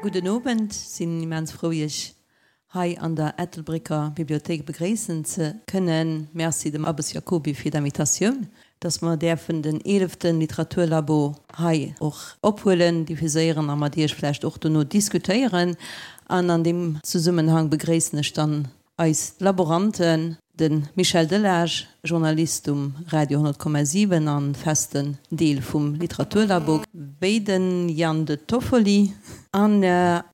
Gudden Owend. Sinn immens frou Iech hei an der Ettelbrécker Bibliothéik begréissen ze kënnen. Merci dem Abbes Jacoby fir d'Invitatioun, dass mer däerfen den eeleften Literaturlabo hei och ophuelen, diffuséieren a mat Iech vläicht och dono diskutéieren. An an deem Zesummenhang begréissen ech dann Eis Laboranten, de Michel Delage, Journalist um Radio 100,7 an festen Deel vum Literaturlabo, wéi de Jan De Toffoli. An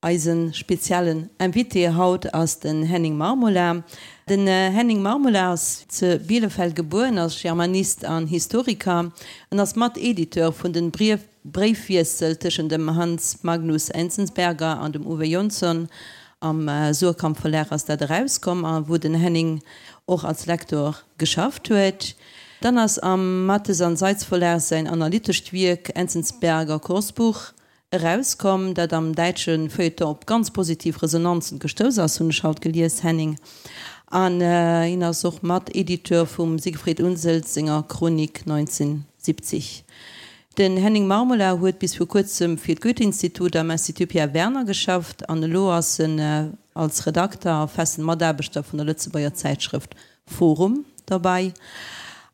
eise speziellen Invité haut ass den Henning Marmula. Den Henning Marmula ass ze Bielefeld gebuer, ass Germanist an Historiker. En ass Mat-Editeur vun den Bréifwiessel tëschent dem Hans Magnus Enzensberger an dem Uwe Jonsson, am Suhrkamp Verlag ass dat erauskomm, a wou den Henning och als Lektor geschafft huet. Dann ass am Matthes an Seitz Verlag säin analytescht Wierk Enzensberger Kursbuch erauskomm, dat am däitsche Feuilleton op ganz positiv Resonanzen gestouss ass, hunn ech haut gelies, Henning. An hien ass och Mat-Editeur vum Siegfried Unseld senger Chronik 1970. Den Henning Marmula huet bis vir kuerzem fir d'Goethe-Institut am Institut Pierre Werner geschafft an elo ass en als Redakter a festen Mataarbechter vun der Lëtzebuerger Zäitschrëft Forum derbäi.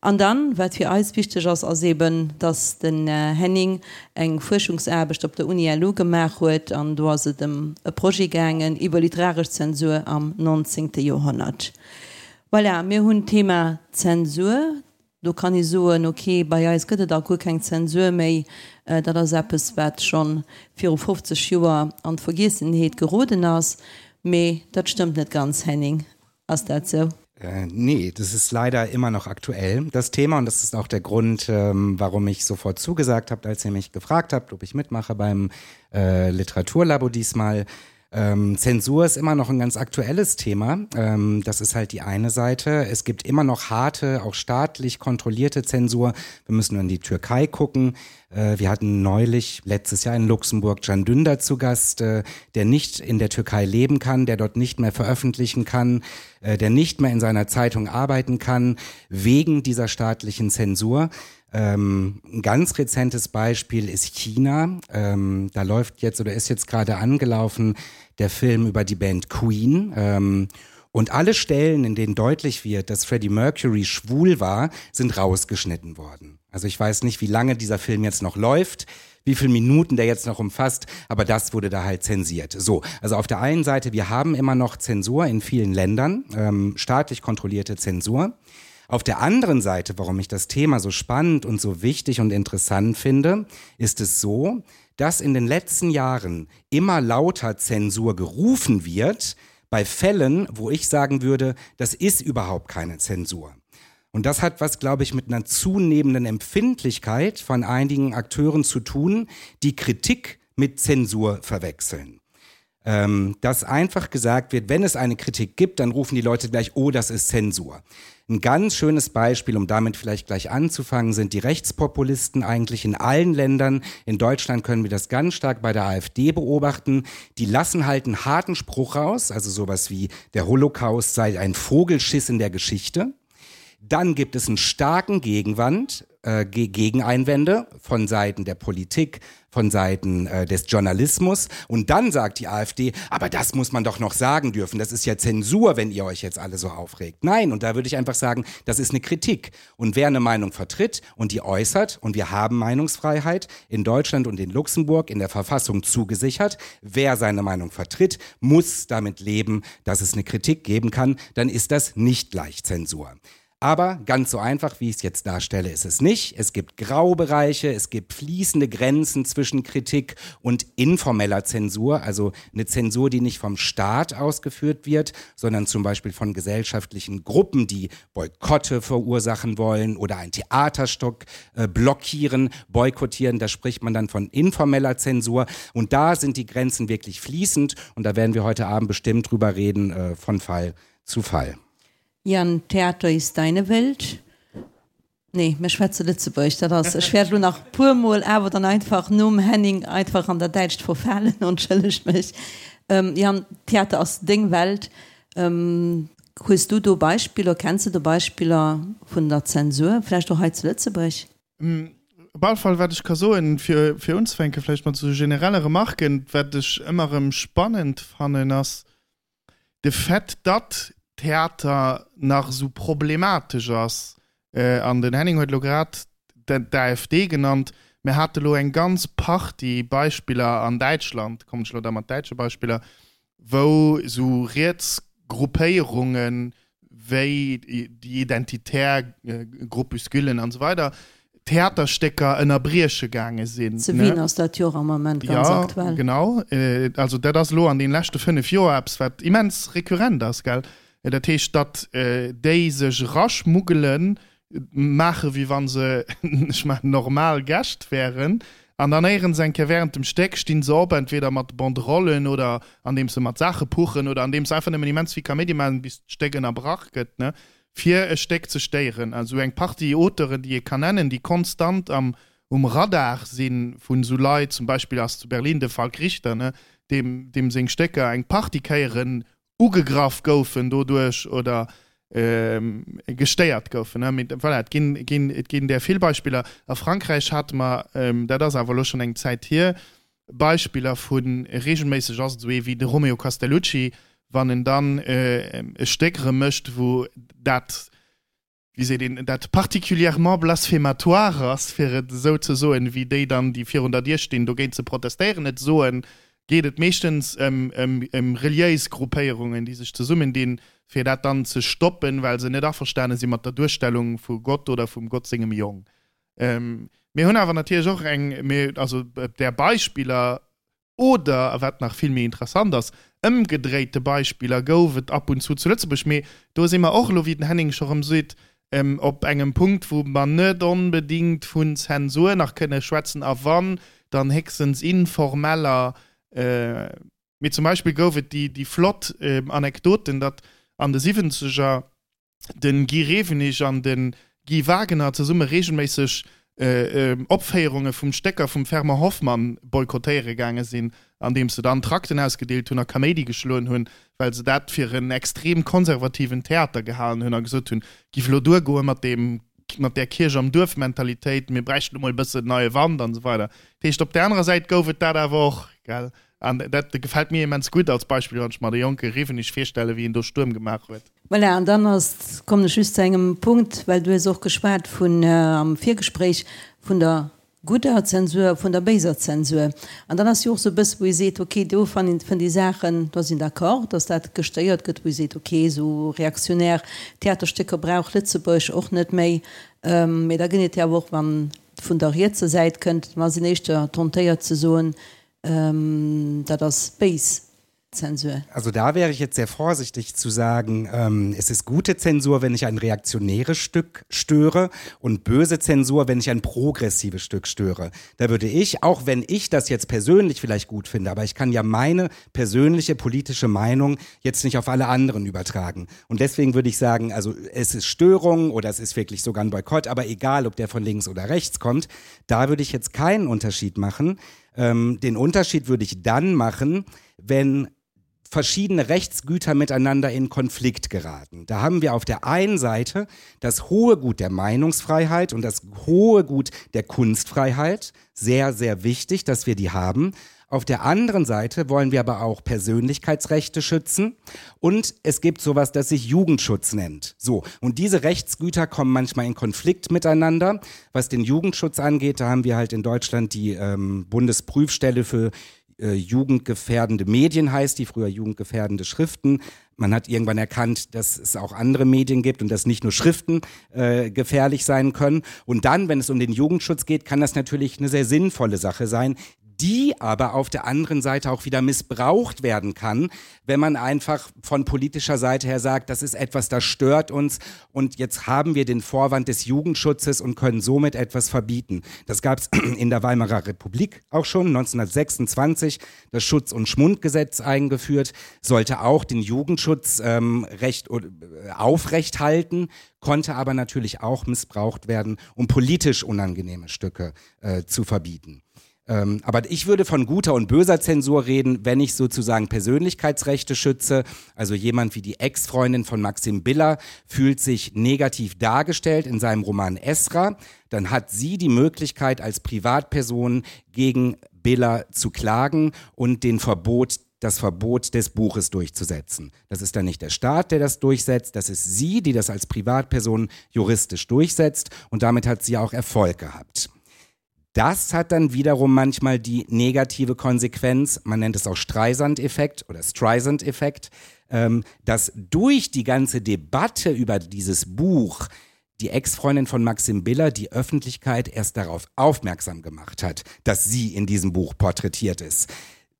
An dann, wat fir eis wichteg ass, ass eben, dass den Henning eng Fuerschungsaarbecht op der Uni LU gemaach huet an do ass et ëm e Projet gaangen iwwer literaresch Zensur am 19. Joerhonnert. Voilà, mir hunn d'Thema Zensur. Do kann ee soen, ok, bei eis gëtt et alt guer keng Zensur méi, dat ass eppes, wat scho viru 50 Joer an d'Vergiessenheet geroden ass. Mee dat stëmmt net ganz, Henning, ass dat sou? Nee, das ist leider immer noch aktuell, das Thema. Und das ist auch der Grund, warum ich sofort zugesagt habe, als ihr mich gefragt habt, ob ich mitmache beim Literaturlabo diesmal. Ähm, Zensur ist immer noch ein ganz aktuelles Thema. Ähm, das ist halt die eine Seite. Es gibt immer noch harte, auch staatlich kontrollierte Zensur. Wir müssen nur in die Türkei gucken. Äh, wir hatten neulich letztes Jahr in Luxemburg Can Dündar zu Gast, äh, der nicht in der Türkei leben kann, der dort nicht mehr veröffentlichen kann, äh, der nicht mehr in seiner Zeitung arbeiten kann, wegen dieser staatlichen Zensur. Ähm, ein ganz rezentes Beispiel ist China. Ähm, da läuft jetzt oder ist jetzt gerade angelaufen der Film über die Band Queen. Ähm, und alle Stellen, in denen deutlich wird, dass Freddie Mercury schwul war, sind rausgeschnitten worden. Also ich weiß nicht, wie lange dieser Film jetzt noch läuft, wie viele Minuten der jetzt noch umfasst, aber das wurde da halt zensiert. So, also auf der einen Seite, wir haben immer noch Zensur in vielen Ländern, ähm, staatlich kontrollierte Zensur. Auf der anderen Seite, warum ich das Thema so spannend und so wichtig und interessant finde, ist es so, dass in den letzten Jahren immer lauter Zensur gerufen wird, bei Fällen, wo ich sagen würde, das ist überhaupt keine Zensur. Und das hat was, glaube ich, mit einer zunehmenden Empfindlichkeit von einigen Akteuren zu tun, die Kritik mit Zensur verwechseln. Ähm, dass einfach gesagt wird, wenn es eine Kritik gibt, dann rufen die Leute gleich, oh, das ist Zensur. Ein ganz schönes Beispiel, um damit vielleicht gleich anzufangen, sind die Rechtspopulisten eigentlich in allen Ländern. In Deutschland können wir das ganz stark bei der AfD beobachten. Die lassen halt einen harten Spruch raus, also sowas wie der Holocaust sei ein Vogelschiss in der Geschichte. Dann gibt es einen starken Gegenwand, äh, Gegeneinwände von Seiten der Politik, von Seiten äh, des Journalismus. Und dann sagt die AfD, aber das muss man doch noch sagen dürfen. Das ist ja Zensur, wenn ihr euch jetzt alle so aufregt. Nein, und da würde ich einfach sagen, das ist eine Kritik. Und wer eine Meinung vertritt und die äußert, und wir haben Meinungsfreiheit in Deutschland und in Luxemburg in der Verfassung zugesichert, wer seine Meinung vertritt, muss damit leben, dass es eine Kritik geben kann, dann ist das nicht gleich Zensur. Aber ganz so einfach, wie ich es jetzt darstelle, ist es nicht. Es gibt Graubereiche, es gibt fließende Grenzen zwischen Kritik und informeller Zensur, also eine Zensur, die nicht vom Staat ausgeführt wird, sondern zum Beispiel von gesellschaftlichen Gruppen, die Boykotte verursachen wollen oder ein Theaterstock äh, blockieren, boykottieren. Da spricht man dann von informeller Zensur. Und da sind die Grenzen wirklich fließend und da werden wir heute Abend bestimmt drüber reden, äh, von Fall zu Fall. Jan, Theater ist deine Welt. Nee, mir schwätze Lëtzebuergesch, dat ass, ech wäert elo nach puermol awer dann einfach nom Henning einfach an dat Däitscht verfalen, entschëllegt mech. Jan, Theater ass deng Welt. Hues du do Beispiller, kenns de do Beispiller vun der Zensur, vläicht och hei zu Lëtzebuerg? Op alle Fall, wat ech ka soen, fir, fir unzefänke vläicht mat esou generelle Remarken, wat ech ëmmer erëm spannend fannen, ass de Fait, datt Theater nach esou problematesch ass. An den Henning huet elo grad d'AfD genannt. Mir hate elo eng ganz Partie Beispiller an Däitschland, kommen ech elo da mat däitsche Beispiller, wou esou riets Gruppéierunge wéi déi identitär Groupusculen an esou weider Theaterstécker ënnerbrieche gaange sinn. Zu Wien ass dat jo och am Ament ganz aktuell. Jo, genau. Also dat ass elo an deene leschte 5 Joer eppes, wat immens rekurrent ass, gell. Dat heescht, datt déi sech eraschmuggelen, maache wéi wa se, ech maachen, normal Gäscht wären, an dann éierens eng Kéier während dem Stéck stinn se op, entweder mat Banderollen oder andeems se mat Saache puchen oder andeems se einfach nëmmen immens vill Kaméidi maachen, bis d'Stéck ënnerbrach gëtt, ne, fir e Stéck ze stéieren. Also eng Partie Auteuren, déi ee kann nennen, déi konstant am um Radar si vun esou Leit, zum Beispill ass zu Berlin de Falk Richter, ne, deem deem seng Stécker eng Partie Kéieren ugegraff goufen doduerch oder gestéiert goufen. Mee voilà, et ginn, ginn, et ginn där vill Beispiller. A Frankräich hate mer, dat ass awer elo schonn eng Zäit hier, Beispiller vu reegelméisseg ass et esou ee wéi de Romeo Castellucci, wann en dann e Stéck erëm mécht, wou dat, wéi seet een, dat particulièrement blasphématoire ass, fir et esou ze soen, wéi déi dann, déi virun der Dier stinn, dogéint ze protestéieren, et soen, geet et meeschtens ëm, ëm, ëm reliéis Gruppéierungen, déi sech zesummendinn, fir dat dann ze stoppen, well se net averstane si mat der Duerstellung vu Gott oder vum Gott sengem Jong. Mir hunn awer natierlech och eng, mir, also där Beispiller Oder, a wat nach vill méi interessant ass, ëmgedréite Beispiller gouf et ab und zu zu Lëtzebuerg. Mee do si mer och elo, wéi den Henning scho rëm seet, op engem Punkt, wou mer net onbedéngt vun Zensur nach kënne schwätzen, a wann, dann héchstens informeller. Mee zum Beispill gouf et déi flott Anekdoten, datt an de Siwwenzeger den Guy Rewenig an den Guy Wagener zesumme regelméisseg Opféierunge vum Stécker vum Fernand Hoffmann boykottéiere gaange sinn, andeems se dann Trakten ausgedeelt hunn a Kaméidi geschloen hunn, well se dat fir en extrem konservativen Theater gehalen hunn a gesot hunn, giff elo duergoe mat deem, mat där Kierch am Duerf-Mentalitéit, mir bräichten elo mol e bëssen neie Wand an esou weider. Dat heescht, op där anerer Säit gouf et dat awer och, gell. An dat gefält mir immens gutt als Beispill, wann ech mer de jonke Rewenig virstellen, wéi en do Stuerm gemaach huet. Voilà, an dann ass, kommen ech just zu engem Punkt, well du hues och geschwat vun, am Virgespréich, vun der gudder Zensur a vun der béiser Zensur. An dann ass jo och esou e bësse wou ee seet, okay, do fann fënnt ee Saachen, do ass een d'accord, datt dat gestéiert gëtt, wou ee seet, okay, esou reaktionär Theaterstécker brauch Lëtzebuerg och net méi. Mee da gëtt et jo awer och, wann et vun der rietser Säit kënnt, da ass een éischter tentéiert ze soen, dat ass béis Zensur. Also da wäre ich jetzt sehr vorsichtig zu sagen, ähm, es ist gute Zensur, wenn ich ein reaktionäres Stück störe und böse Zensur, wenn ich ein progressives Stück störe. Da würde ich, auch wenn ich das jetzt persönlich vielleicht gut finde, aber ich kann ja meine persönliche politische Meinung jetzt nicht auf alle anderen übertragen. Und deswegen würde ich sagen, also es ist Störung oder es ist wirklich sogar ein Boykott, aber egal, ob der von links oder rechts kommt, da würde ich jetzt keinen Unterschied machen. Ähm, den Unterschied würde ich dann machen, wenn verschiedene Rechtsgüter miteinander in Konflikt geraten. Da haben wir auf der einen Seite das hohe Gut der Meinungsfreiheit und das hohe Gut der Kunstfreiheit. Sehr, sehr wichtig, dass wir die haben. Auf der anderen Seite wollen wir aber auch Persönlichkeitsrechte schützen und es gibt sowas, das sich Jugendschutz nennt. So und diese Rechtsgüter kommen manchmal in Konflikt miteinander. Was den Jugendschutz angeht, da haben wir halt in Deutschland die ähm, Bundesprüfstelle für äh, jugendgefährdende Medien heißt, die früher jugendgefährdende Schriften. Man hat irgendwann erkannt, dass es auch andere Medien gibt und dass nicht nur Schriften äh, gefährlich sein können. Und dann, wenn es um den Jugendschutz geht, kann das natürlich eine sehr sinnvolle Sache sein, die aber auf der anderen Seite auch wieder missbraucht werden kann, wenn man einfach von politischer Seite her sagt, das ist etwas, das stört uns und jetzt haben wir den Vorwand des Jugendschutzes und können somit etwas verbieten. Das gab es in der Weimarer Republik auch schon 1926 das Schutz- und Schmundgesetz eingeführt, sollte auch den Jugendschutz ähm, recht äh, aufrecht halten, konnte aber natürlich auch missbraucht werden, um politisch unangenehme Stücke äh, zu verbieten. Ähm, aber ich würde von guter und böser Zensur reden, wenn ich sozusagen Persönlichkeitsrechte schütze. Also jemand wie die Ex-Freundin von Maxim Biller fühlt sich negativ dargestellt in seinem Roman Esra. Dann hat sie die Möglichkeit, als Privatperson gegen Biller zu klagen und den Verbot das Verbot des Buches durchzusetzen. Das ist dann nicht der Staat, der das durchsetzt, das ist sie, die das als Privatperson juristisch durchsetzt und damit hat sie auch Erfolg gehabt. Das hat dann wiederum manchmal die negative Konsequenz, man nennt es auch Streisand-Effekt oder Streisand-Effekt, ähm, dass durch die ganze Debatte über dieses Buch die Ex-Freundin von Maxim Biller die Öffentlichkeit erst darauf aufmerksam gemacht hat, dass sie in diesem Buch porträtiert ist.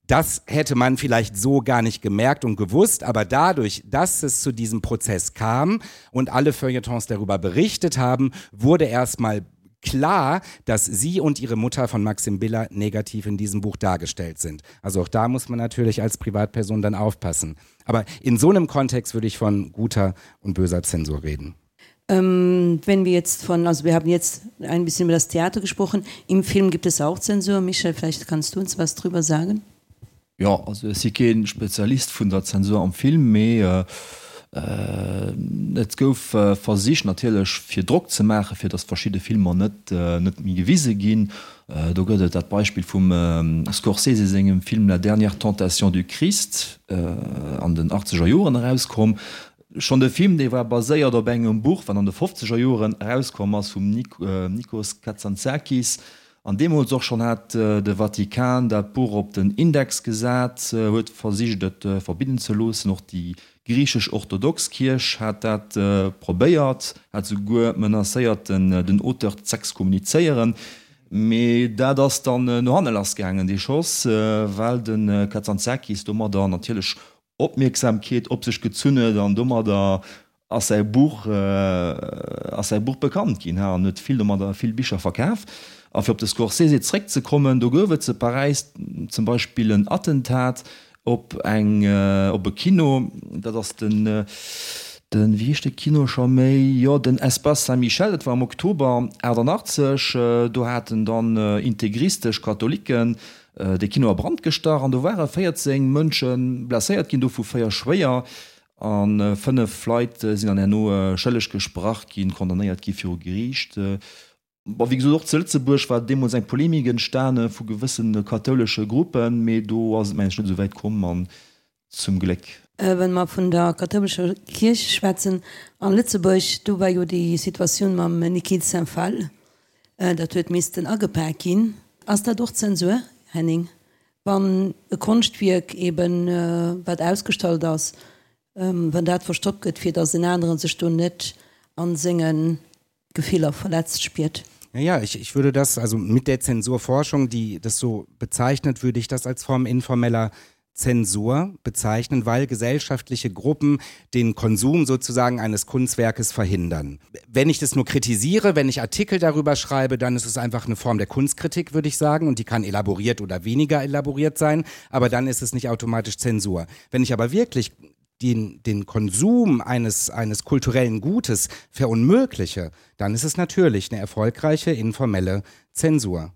Das hätte man vielleicht so gar nicht gemerkt und gewusst, aber dadurch, dass es zu diesem Prozess kam und alle Feuilletons darüber berichtet haben, wurde erstmal klar, dass sie und ihre Mutter von Maxim Biller negativ in diesem Buch dargestellt sind. Also auch da muss man natürlich als Privatperson dann aufpassen. Aber in so einem Kontext würde ich von guter und böser Zensur reden. Ähm, wenn wir jetzt von also wir haben jetzt ein bisschen über das Theater gesprochen. Im Film gibt es auch Zensur. Michel, vielleicht kannst du uns was drüber sagen? Jo, also ech si kee Spezialist vun der Zensur am Film, mee et gouf versicht natierlech fir Drock ze maachen, fir datt verschidde Filmer net net méi gewise ginn. Do gëtt et dat Beispill vum Scorsese sengem Film La dernière tentation du Christ, an den achtzeger Joren erauskomm. Schonn de Film, dee war baséiert op engem Buch, wat an de fofzeger Joren erauskomm ass vum Nikos Kazantzakis. An deemools och schonn hat de Vatikan dat Buch op den Index gesat, huet versicht et verbidden ze loossen. Och déi griichesch-orthodox Kierch hat dat probéiert, hat souguer menacéiert den Auteur z'exkommunizéieren. Mee dat ass dann no hanne lassgaangen, dee Schoss, well de Kazantzakis domadder natierlech Opmierksamkeet op sech gezunn huet an domadder ass säi Buch ass säi Buch bekannt ginn an huet vill domadder vill Bicher verkaf. A fir op de Scorsese zréckzekommen, do gouf et zu Paräis zum Beispill en Attentat op eng op e Kino, dat ass den den wéi heescht de Kino scho méi, jo den Espace Saint-Michel, dat war am Oktober 88, do haten dann integristesch Katholiken De Kino a Brand gestach an do ware 14 Mënsche blesséiert ginn, dovu 4 schwéier a 5 Leit sinn dann herno schëlleg gesprach ginn, condamnéiert gi viru Geriicht. Bon, wéi gesot, och zu Lëtzebuerg war deemools eng Polemik entstane vu gewësse kathoulesche Gruppen, mee do ass et mengen ech net esou wäit komm an zum Gléck. Wa mer vun der kathoulescher Kierch schwätzen a Lëtzebuerg, do war jo déi Situatioun mam Niki de Saint Phalle, dat huet missten agepak ginn. Ass dat och Zensur, Henning, wann e Konschtwierk eben, wat ausgestallt ass, wann dat verstoppt gëtt, fir datt en anere sech do net a senge Gefiller verletzt spiert? Ja, ich, ich würde das, also mit der Zensurforschung, die das so bezeichnet, würde ich das als Form informeller Zensur bezeichnen, weil gesellschaftliche Gruppen den Konsum sozusagen eines Kunstwerkes verhindern. Wenn ich das nur kritisiere, wenn ich Artikel darüber schreibe, dann ist es einfach eine Form der Kunstkritik, würde ich sagen, und die kann elaboriert oder weniger elaboriert sein, aber dann ist es nicht automatisch Zensur. Wenn ich aber wirklich den, den Konsum eines, eines kulturellen Gutes verunmögliche, dann ist es natürlich eine erfolgreiche informelle Zensur.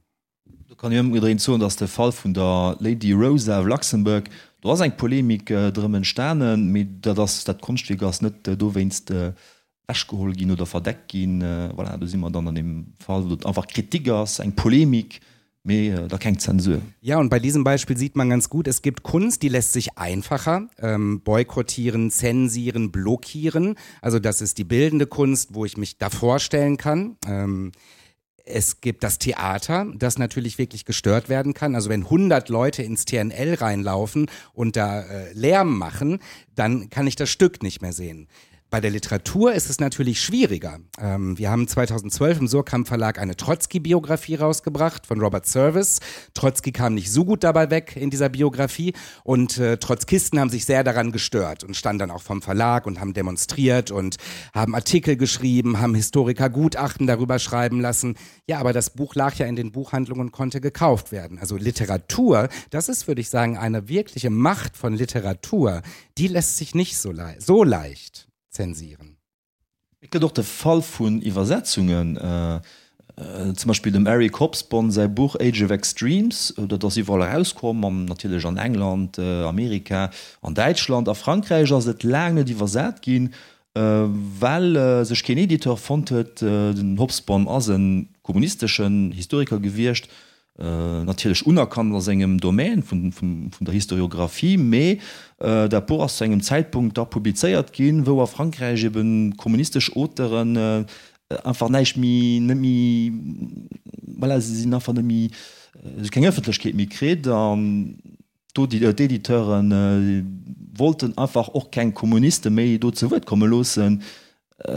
Do kann een ëmgedréint soen, dass de Fall vun der Lady Rosa of Luxembourg, do ass eng Polemik drëm entstanen, mee dat ass, dat Konschtwierk ass net dowéinst ewechgeholl ginn oder verdeckt ginn. Voilà, do si mer dann an deem Fall, wou et einfach Kritik ass, eng Polemik, mee da keng Zensur. Ja, und bei diesem Beispiel sieht man ganz gut, es gibt Kunst, die lässt sich einfacher ähm, boykottieren, zensieren, blockieren. Also das ist die bildende Kunst, wo ich mich davor stellen kann. Ähm, es gibt das Theater, das natürlich wirklich gestört werden kann. Also wenn 100 Leute ins TNL reinlaufen und da äh, Lärm machen, dann kann ich das Stück nicht mehr sehen. Bei der Literatur ist es natürlich schwieriger. Ähm, wir haben 2012 im Surkamp Verlag eine Trotzki-Biografie rausgebracht von Robert Service. Trotzki kam nicht so gut dabei weg in dieser Biografie und äh, Trotzkisten haben sich sehr daran gestört und standen dann auch vom Verlag und haben demonstriert und haben Artikel geschrieben, haben Historiker Gutachten darüber schreiben lassen. Ja, aber das Buch lag ja in den Buchhandlungen und konnte gekauft werden. Also Literatur, das ist, würde ich sagen, eine wirkliche Macht von Literatur, die lässt sich nicht so, le so leicht zensieren. Et gëtt och de Fall vun Iwwersetzungen. Zum Beispill dem Eric Hobsbawm säi Buch Age of Extremes, dat ass iwwerall erauskomm, an natierlech an England, Amerika an Däitschland. A Frankräich ass et laang net iwwersat ginn, well sech keen Editeur fonnt huet. Den Hobsbawm ass e kommunisteschen Historiker gewiescht, natierlech unerkannt a sengem Domaine vun der Historiographie, mee dat Buch ass zu engem Zäitpunkt da publizéiert ginn, wou a Frankräich ebe kommunistesch Auteuren einfach näischt méi, net méi, voilà, se sinn einfach net méi, se hu keng Ëffentlechkeet méi kritt an d'Editeure wollten einfach och keng Kommuniste méi do zu Wuert komme loossen.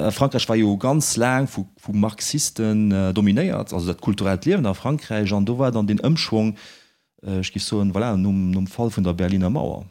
Frankräich war jo ganz laang vu Marxisten dominéiert, also dat kulturellt Liewen a Frankräich, an do war dann deen Ëmschwong, ech géif soen, voilà, nom Fall vun der Berliner Mauer.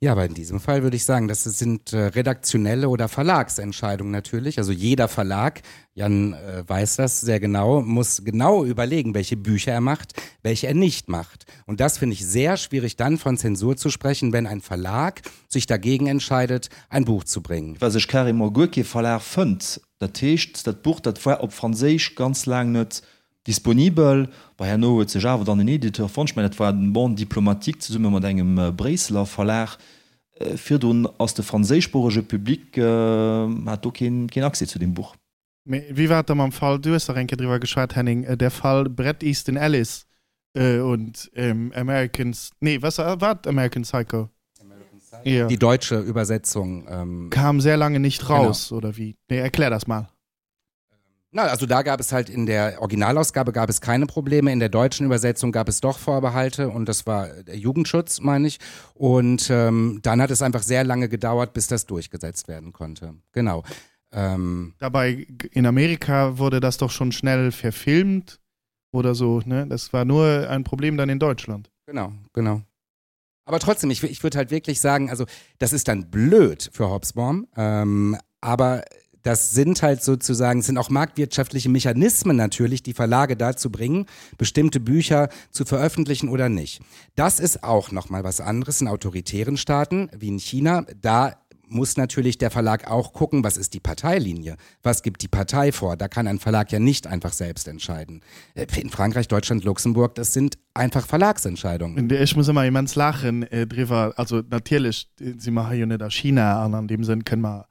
Ja, aber in diesem Fall würde ich sagen, das sind äh, redaktionelle oder Verlagsentscheidungen natürlich. Also jeder Verlag, Jan äh, weiß das sehr genau, muss genau überlegen, welche Bücher er macht, welche er nicht macht. Und das finde ich sehr schwierig, dann von Zensur zu sprechen, wenn ein Verlag sich dagegen entscheidet, ein Buch zu bringen. Well sech carrément guer kee Verlag fënnt. Dat heescht, dat Buch, dat war op Franséisch ganz laang net disponibel. Bon, herno huet sech awer dann en Editeur fonnt. Ech mengen, dat war den Monde diplomatique zesumme mat engem Bréisseler Verlag. Virdrun ass de franséischsproochege Public hat do keen Accès zu deem Buch. Mee wéi war et da mam Fall, du hues dach eng Kéier driwwer geschwat, Henning, der Fall Bret Easton Ellis und American, nee, was war et, American Psycho? Ja. Die deutsche Übersetzung. Kam sehr lange nicht raus, oder wie? Nee, erklär das mal. Na, also da gab es halt in der Originalausgabe gab es keine Probleme, in der deutschen Übersetzung gab es doch Vorbehalte und das war der Jugendschutz, meine ich. Und ähm, dann hat es einfach sehr lange gedauert, bis das durchgesetzt werden konnte. Genau. Ähm, Dabei in Amerika wurde das doch schon schnell verfilmt oder so, ne? Das war nur ein Problem dann in Deutschland. Genau, genau. Aber trotzdem, ich, ich würde halt wirklich sagen, also das ist dann blöd für Hobsbawm, ähm, aber das sind halt sozusagen, sind auch marktwirtschaftliche Mechanismen natürlich, die Verlage dazu bringen, bestimmte Bücher zu veröffentlichen oder nicht. Das ist auch nochmal was anderes in autoritären Staaten wie in China. Da muss natürlich der Verlag auch gucken, was ist die Parteilinie? Was gibt die Partei vor? Da kann ein Verlag ja nicht einfach selbst entscheiden. Äh, in Frankreich, Deutschland, Luxemburg, das sind einfach Verlagsentscheidungen. Ech muss ëmmer immens laachen driwwer. Also natierlech si mer hei jo net a China an an deem Sënn kënne mer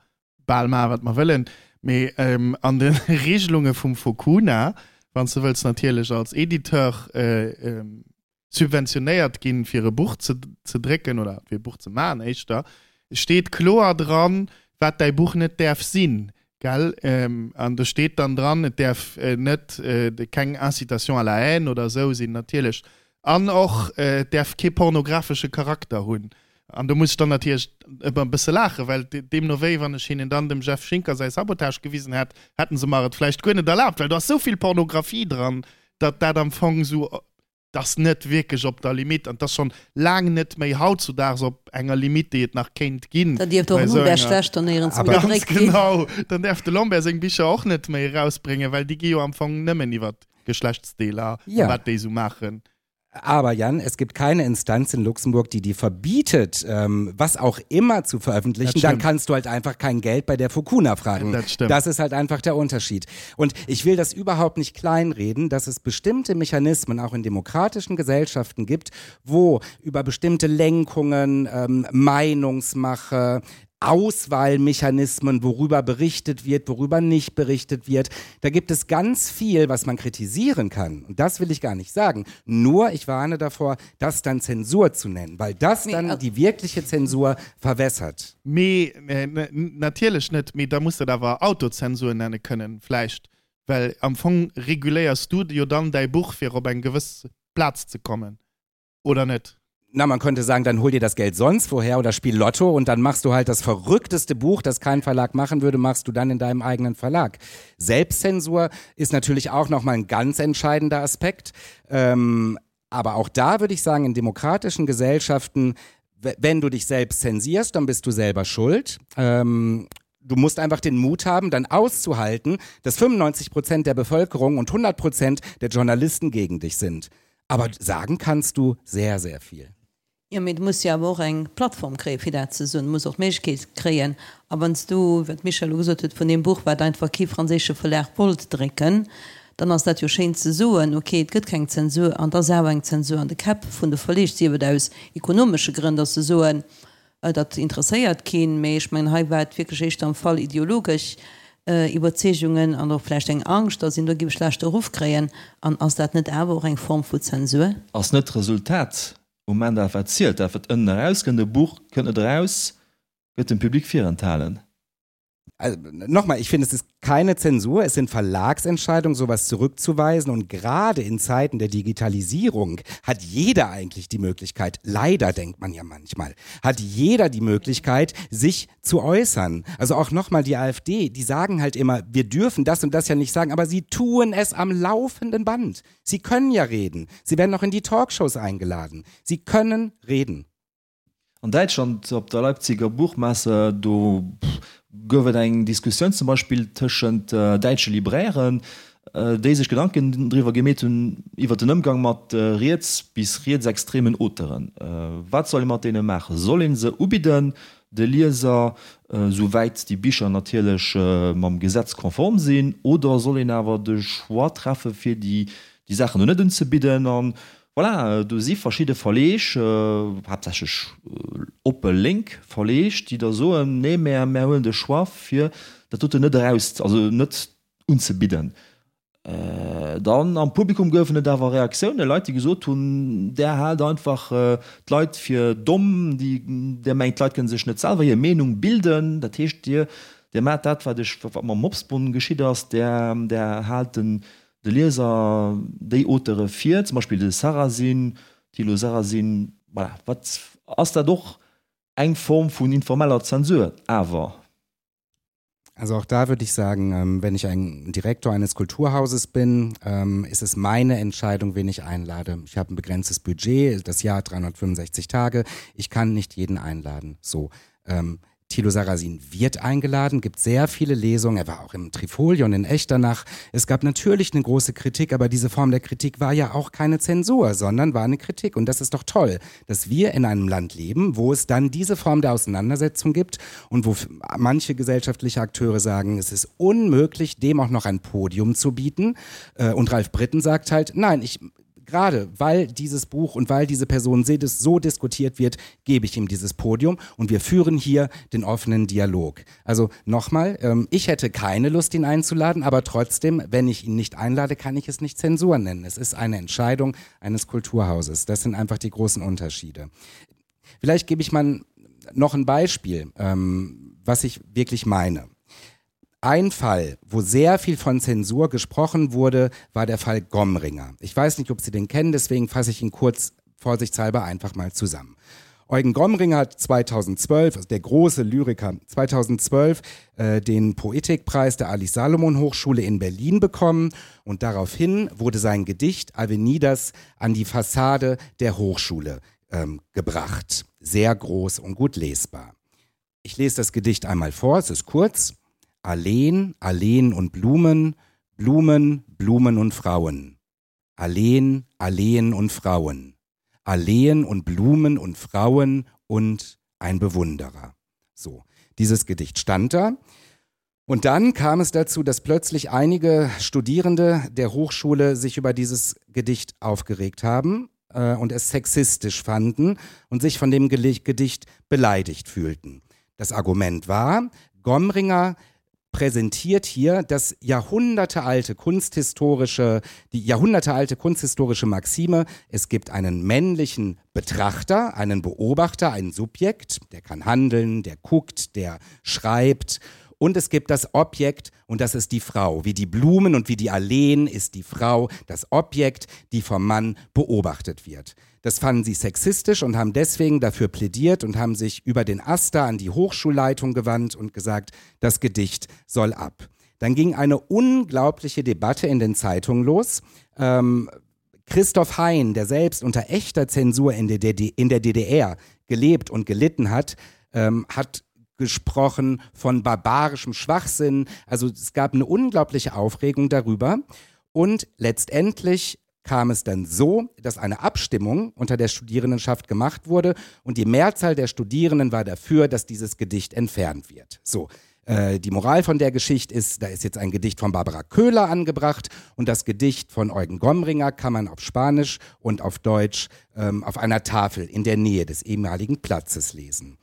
bal maachen, wat mer wëllen. Mee an de Regelunge vum Focuna, wann s de wëlls natierlech als Editeur subventionéiert ginn, fir e Buch ze ze drécken oder fir e Buch ze maachen éischter, steet kloer dran, wat däi Buch net däerf sinn, gell? An do steet dann dran, et däerf net keng Incitation à la haine oder esou sinn natierlech an och et däerf kee pornografesche Charakter hunn. An do muss ech dann natierlech ëmmer e bësse laachen, well deemno wéi, wann ech hinnen dann dem Jeff Schinker säi Sabotage gewisen hätt, hätten se mer et vläicht guer net erlaabt, well do ass esou vill Pornografie dran, datt dat am Fong esou 't ass net wierklech op der Limite an 't ass schonn laang net méi hautzudaags op enger Limite, déi et nach kéint ginn. Da dierft och den Lambert schlechter néierens méi gedréckt ginn. Ganz genau, dann däerf de Lambert seng Bicher och net méi erausbréngen, well déi gi jo am Fong nëmmen iwwer d'Geschlechtsdeeler a wat déi esou maachen. Aber Jan, es gibt keine Instanz in Luxemburg, die dir verbietet, ähm, was auch immer zu veröffentlichen. Dann kannst du halt einfach kein Geld bei der Fukuna fragen. Das stimmt. Das ist halt einfach der Unterschied. Und ich will das überhaupt nicht kleinreden, dass es bestimmte Mechanismen auch in demokratischen Gesellschaften gibt, wo über bestimmte Lenkungen, ähm, Meinungsmache, Auswahlmechanismen, worüber berichtet wird, worüber nicht berichtet wird. Da gibt es ganz viel, was man kritisieren kann. Und das will ich gar nicht sagen. Nur ich warne davor, das dann Zensur zu nennen, weil das dann die wirkliche Zensur verwässert. Mee natierlech net, mee da muss dat awer Autozensur nenne kënnen vläicht, well am Fong reguléiers du jo dann däi Buch fir op eng gewëss Plaz ze kommen, oder net? Na, man könnte sagen, dann hol dir das Geld sonst woher oder spiel Lotto und dann machst du halt das verrückteste Buch, das kein Verlag machen würde, machst du dann in deinem eigenen Verlag. Selbstzensur ist natürlich auch nochmal ein ganz entscheidender Aspekt. Ähm, aber auch da würde ich sagen, in demokratischen Gesellschaften, wenn du dich selbst zensierst, dann bist du selber schuld. Ähm, du musst einfach den Mut haben, dann auszuhalten, dass 95 Prozent der Bevölkerung und 100 Prozent der Journalisten gegen dich sind. Aber sagen kannst du sehr, sehr viel. Jo, mee du muss jo awer och eng Plattform kréien, fir dat ze soen. Du muss och d'Méiglechkeet kréien. A wann s du, wat d'Michèle elo gesot huet, vun deem Buch, wat einfach kee franséische Verlag wollt drécken, Dann ass dat jo schéin ze soen, ok, et gëtt keng Zensur, an et ass awer eng Zensur an de Käpp vun de Verleeg, sief et aus ekonomesche Grënn, datt se soen, dat interesséiert keen, mee ech mengen, hei war et wierklech éischter am Fall ideologesch Iwwerzeegungen an och vläicht eng Angscht, datt een do géif e schlechte Ruff kréien. An ass dat net awer och eng Form vu Zensur? Ass net d'Resultat um Enn dat wat zielt, dat wat ënnen erauskënnt? E Buch kënnt net eraus, gëtt dem Public virenthalen. Also, nochmal, ich finde, es ist keine Zensur, es sind Verlagsentscheidungen, sowas zurückzuweisen. Und gerade in Zeiten der Digitalisierung hat jeder eigentlich die Möglichkeit, leider denkt man ja manchmal, hat jeder die Möglichkeit, sich zu äußern. Also auch nochmal die AfD, die sagen halt immer, wir dürfen das und das ja nicht sagen, aber sie tun es am laufenden Band. Sie können ja reden. Sie werden auch in die Talkshows eingeladen. Sie können reden. An Däitschland op der Leipziger Buchmesse, do gouf et eng Diskussioun zum Beispill tëschent däitsche Librairen, déi sech Gedanken driwwer gemeet hunn iwwer den Ëmgang mat riets bis rietsextremen Auteuren. Wat soll ee mat deene maachen? Soll ee se ubidden de Lieser, souwäit déi Bicher natierlech mam Gesetz konform sinn, oder soll een awer de Choix treffe fir déi Saachen do net unzebidden? An Voilà, do si verschidde Verleeg, haaptsächlech oppe lénk Verleeg, déi da soen, nee, mä mär huelen de Choix fir dat doten net eraus, also net unzebidden. Dann am Publikum goufen et awer Reaktiounen, Leit, déi gesot hunn, där haalt einfach d'Leit fir domm, déi, där mengt, d'Leit kënne sech net selwer hir Meenung bilden. Dat heescht, dir, dir maacht dat, wat ech, wat mam Mopsbonn geschitt ass, där, där haalt den, De Lieser déi Auteure vir, zum Beispill de Sarrazin, Thilo Sarrazin, voilà, wat ass dat och eng Form vun informeller Zensur awer? Also auch da würde ich sagen, ähm, wenn ich ein Direktor eines Kulturhauses bin, ähm, ist es meine Entscheidung, wen ich einlade. Ich habe ein begrenztes Budget, das Jahr 365 Tage. Ich kann nicht jeden einladen. So. Ähm, Thilo Sarrazin wird eingeladen, gibt sehr viele Lesungen. Er war auch im Trifolion in Echternach. Es gab natürlich eine große Kritik, aber diese Form der Kritik war ja auch keine Zensur, sondern war eine Kritik. Und das ist doch toll, dass wir in einem Land leben, wo es dann diese Form der Auseinandersetzung gibt und wo manche gesellschaftliche Akteure sagen, es ist unmöglich, dem auch noch ein Podium zu bieten. Äh, und Ralf Britten sagt halt, nein, ich gerade weil dieses Buch und weil diese Person so diskutiert wird, gebe ich ihm dieses Podium und wir führen hier den offenen Dialog. Also nochmal, ähm, ich hätte keine Lust, ihn einzuladen, aber trotzdem, wenn ich ihn nicht einlade, kann ich es nicht Zensur nennen. Es ist eine Entscheidung eines Kulturhauses. Das sind einfach die großen Unterschiede. Vielleicht gebe ich mal noch ein Beispiel, ähm, was ich wirklich meine. Ein Fall, wo sehr viel von Zensur gesprochen wurde, war der Fall Gomringer. Ich weiß nicht, ob Sie den kennen, deswegen fasse ich ihn kurz vorsichtshalber einfach mal zusammen. Eugen Gomringer hat 2012, also der große Lyriker, 2012 äh, den Poetikpreis der Alice Salomon Hochschule in Berlin bekommen und daraufhin wurde sein Gedicht Avenidas an die Fassade der Hochschule ähm, gebracht. Sehr groß und gut lesbar. Ich lese das Gedicht einmal vor, es ist kurz. Alleen, Alleen und Blumen, Blumen, Blumen und Frauen. Alleen, Alleen und Frauen. Alleen und Blumen und Frauen und ein Bewunderer. So, dieses Gedicht stand da. Und dann kam es dazu, dass plötzlich einige Studierende der Hochschule sich über dieses Gedicht aufgeregt haben äh, und es sexistisch fanden und sich von dem Gedicht beleidigt fühlten. Das Argument war, Gomringer präsentiert hier das jahrhundertealte kunsthistorische, die jahrhundertealte kunsthistorische Maxime, es gibt einen männlichen Betrachter, einen Beobachter, ein Subjekt, der kann handeln, der guckt, der schreibt und es gibt das Objekt und das ist die Frau. Wie die Blumen und wie die Alleen ist die Frau das Objekt, die vom Mann beobachtet wird. Das fanden sie sexistisch und haben deswegen dafür plädiert und haben sich über den Aster an die Hochschulleitung gewandt und gesagt, das Gedicht soll ab. Dann ging eine unglaubliche Debatte in den Zeitungen los. Ähm, Christoph Hein, der selbst unter echter Zensur in der, DD in der DDR gelebt und gelitten hat, ähm, hat gesprochen von barbarischem Schwachsinn. Also es gab eine unglaubliche Aufregung darüber. Und letztendlich kam es dann so, dass eine Abstimmung unter der Studierendenschaft gemacht wurde und die Mehrzahl der Studierenden war dafür, dass dieses Gedicht entfernt wird. So. Äh, die Moral von der Geschichte ist, da ist jetzt ein Gedicht von Barbara Köhler angebracht und das Gedicht von Eugen Gomringer kann man auf Spanisch und auf Deutsch ähm, auf einer Tafel in der Nähe des ehemaligen Platzes lesen.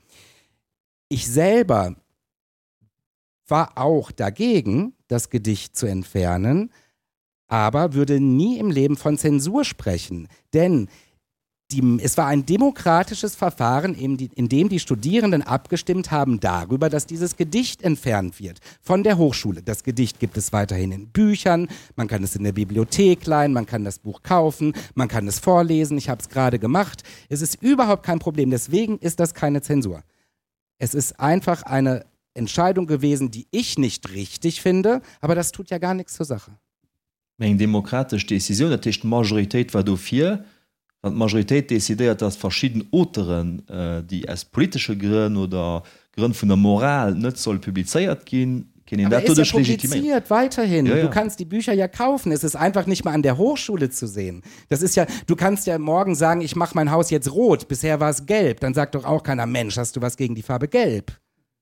Ich selber war auch dagegen, das Gedicht zu entfernen, aber würde nie im Leben von Zensur sprechen, denn die, es war ein demokratisches Verfahren, in, die, in dem die Studierenden abgestimmt haben darüber, dass dieses Gedicht entfernt wird von der Hochschule. Das Gedicht gibt es weiterhin in Büchern, man kann es in der Bibliothek leihen, man kann das Buch kaufen, man kann es vorlesen. Ich habe es gerade gemacht. Es ist überhaupt kein Problem. Deswegen ist das keine Zensur. Es ist einfach eine Entscheidung gewesen, die ich nicht richtig finde, aber das tut ja gar nichts zur Sache. Mee eng demokratesch Decisioun, dat heescht d'Majoritéit war dofir. Wann d'Majoritéit decidéiert, datt verschidden Auteuren, déi aus politesche Grënn oder Grënn vun der Moral net solle publizéiert ginn, kéint een Aber dat er ist ja doduerch legitiméieren. publiziert weiterhin. Ja, Du ja. kannst die Bücher ja kaufen. Es ist einfach nicht mehr an der Hochschule zu sehen. Das ist ja, du kannst ja morgen sagen, ich mache mein Haus jetzt rot. Bisher war es gelb. Dann sagt doch auch keiner, Mensch, hast du was gegen die Farbe gelb?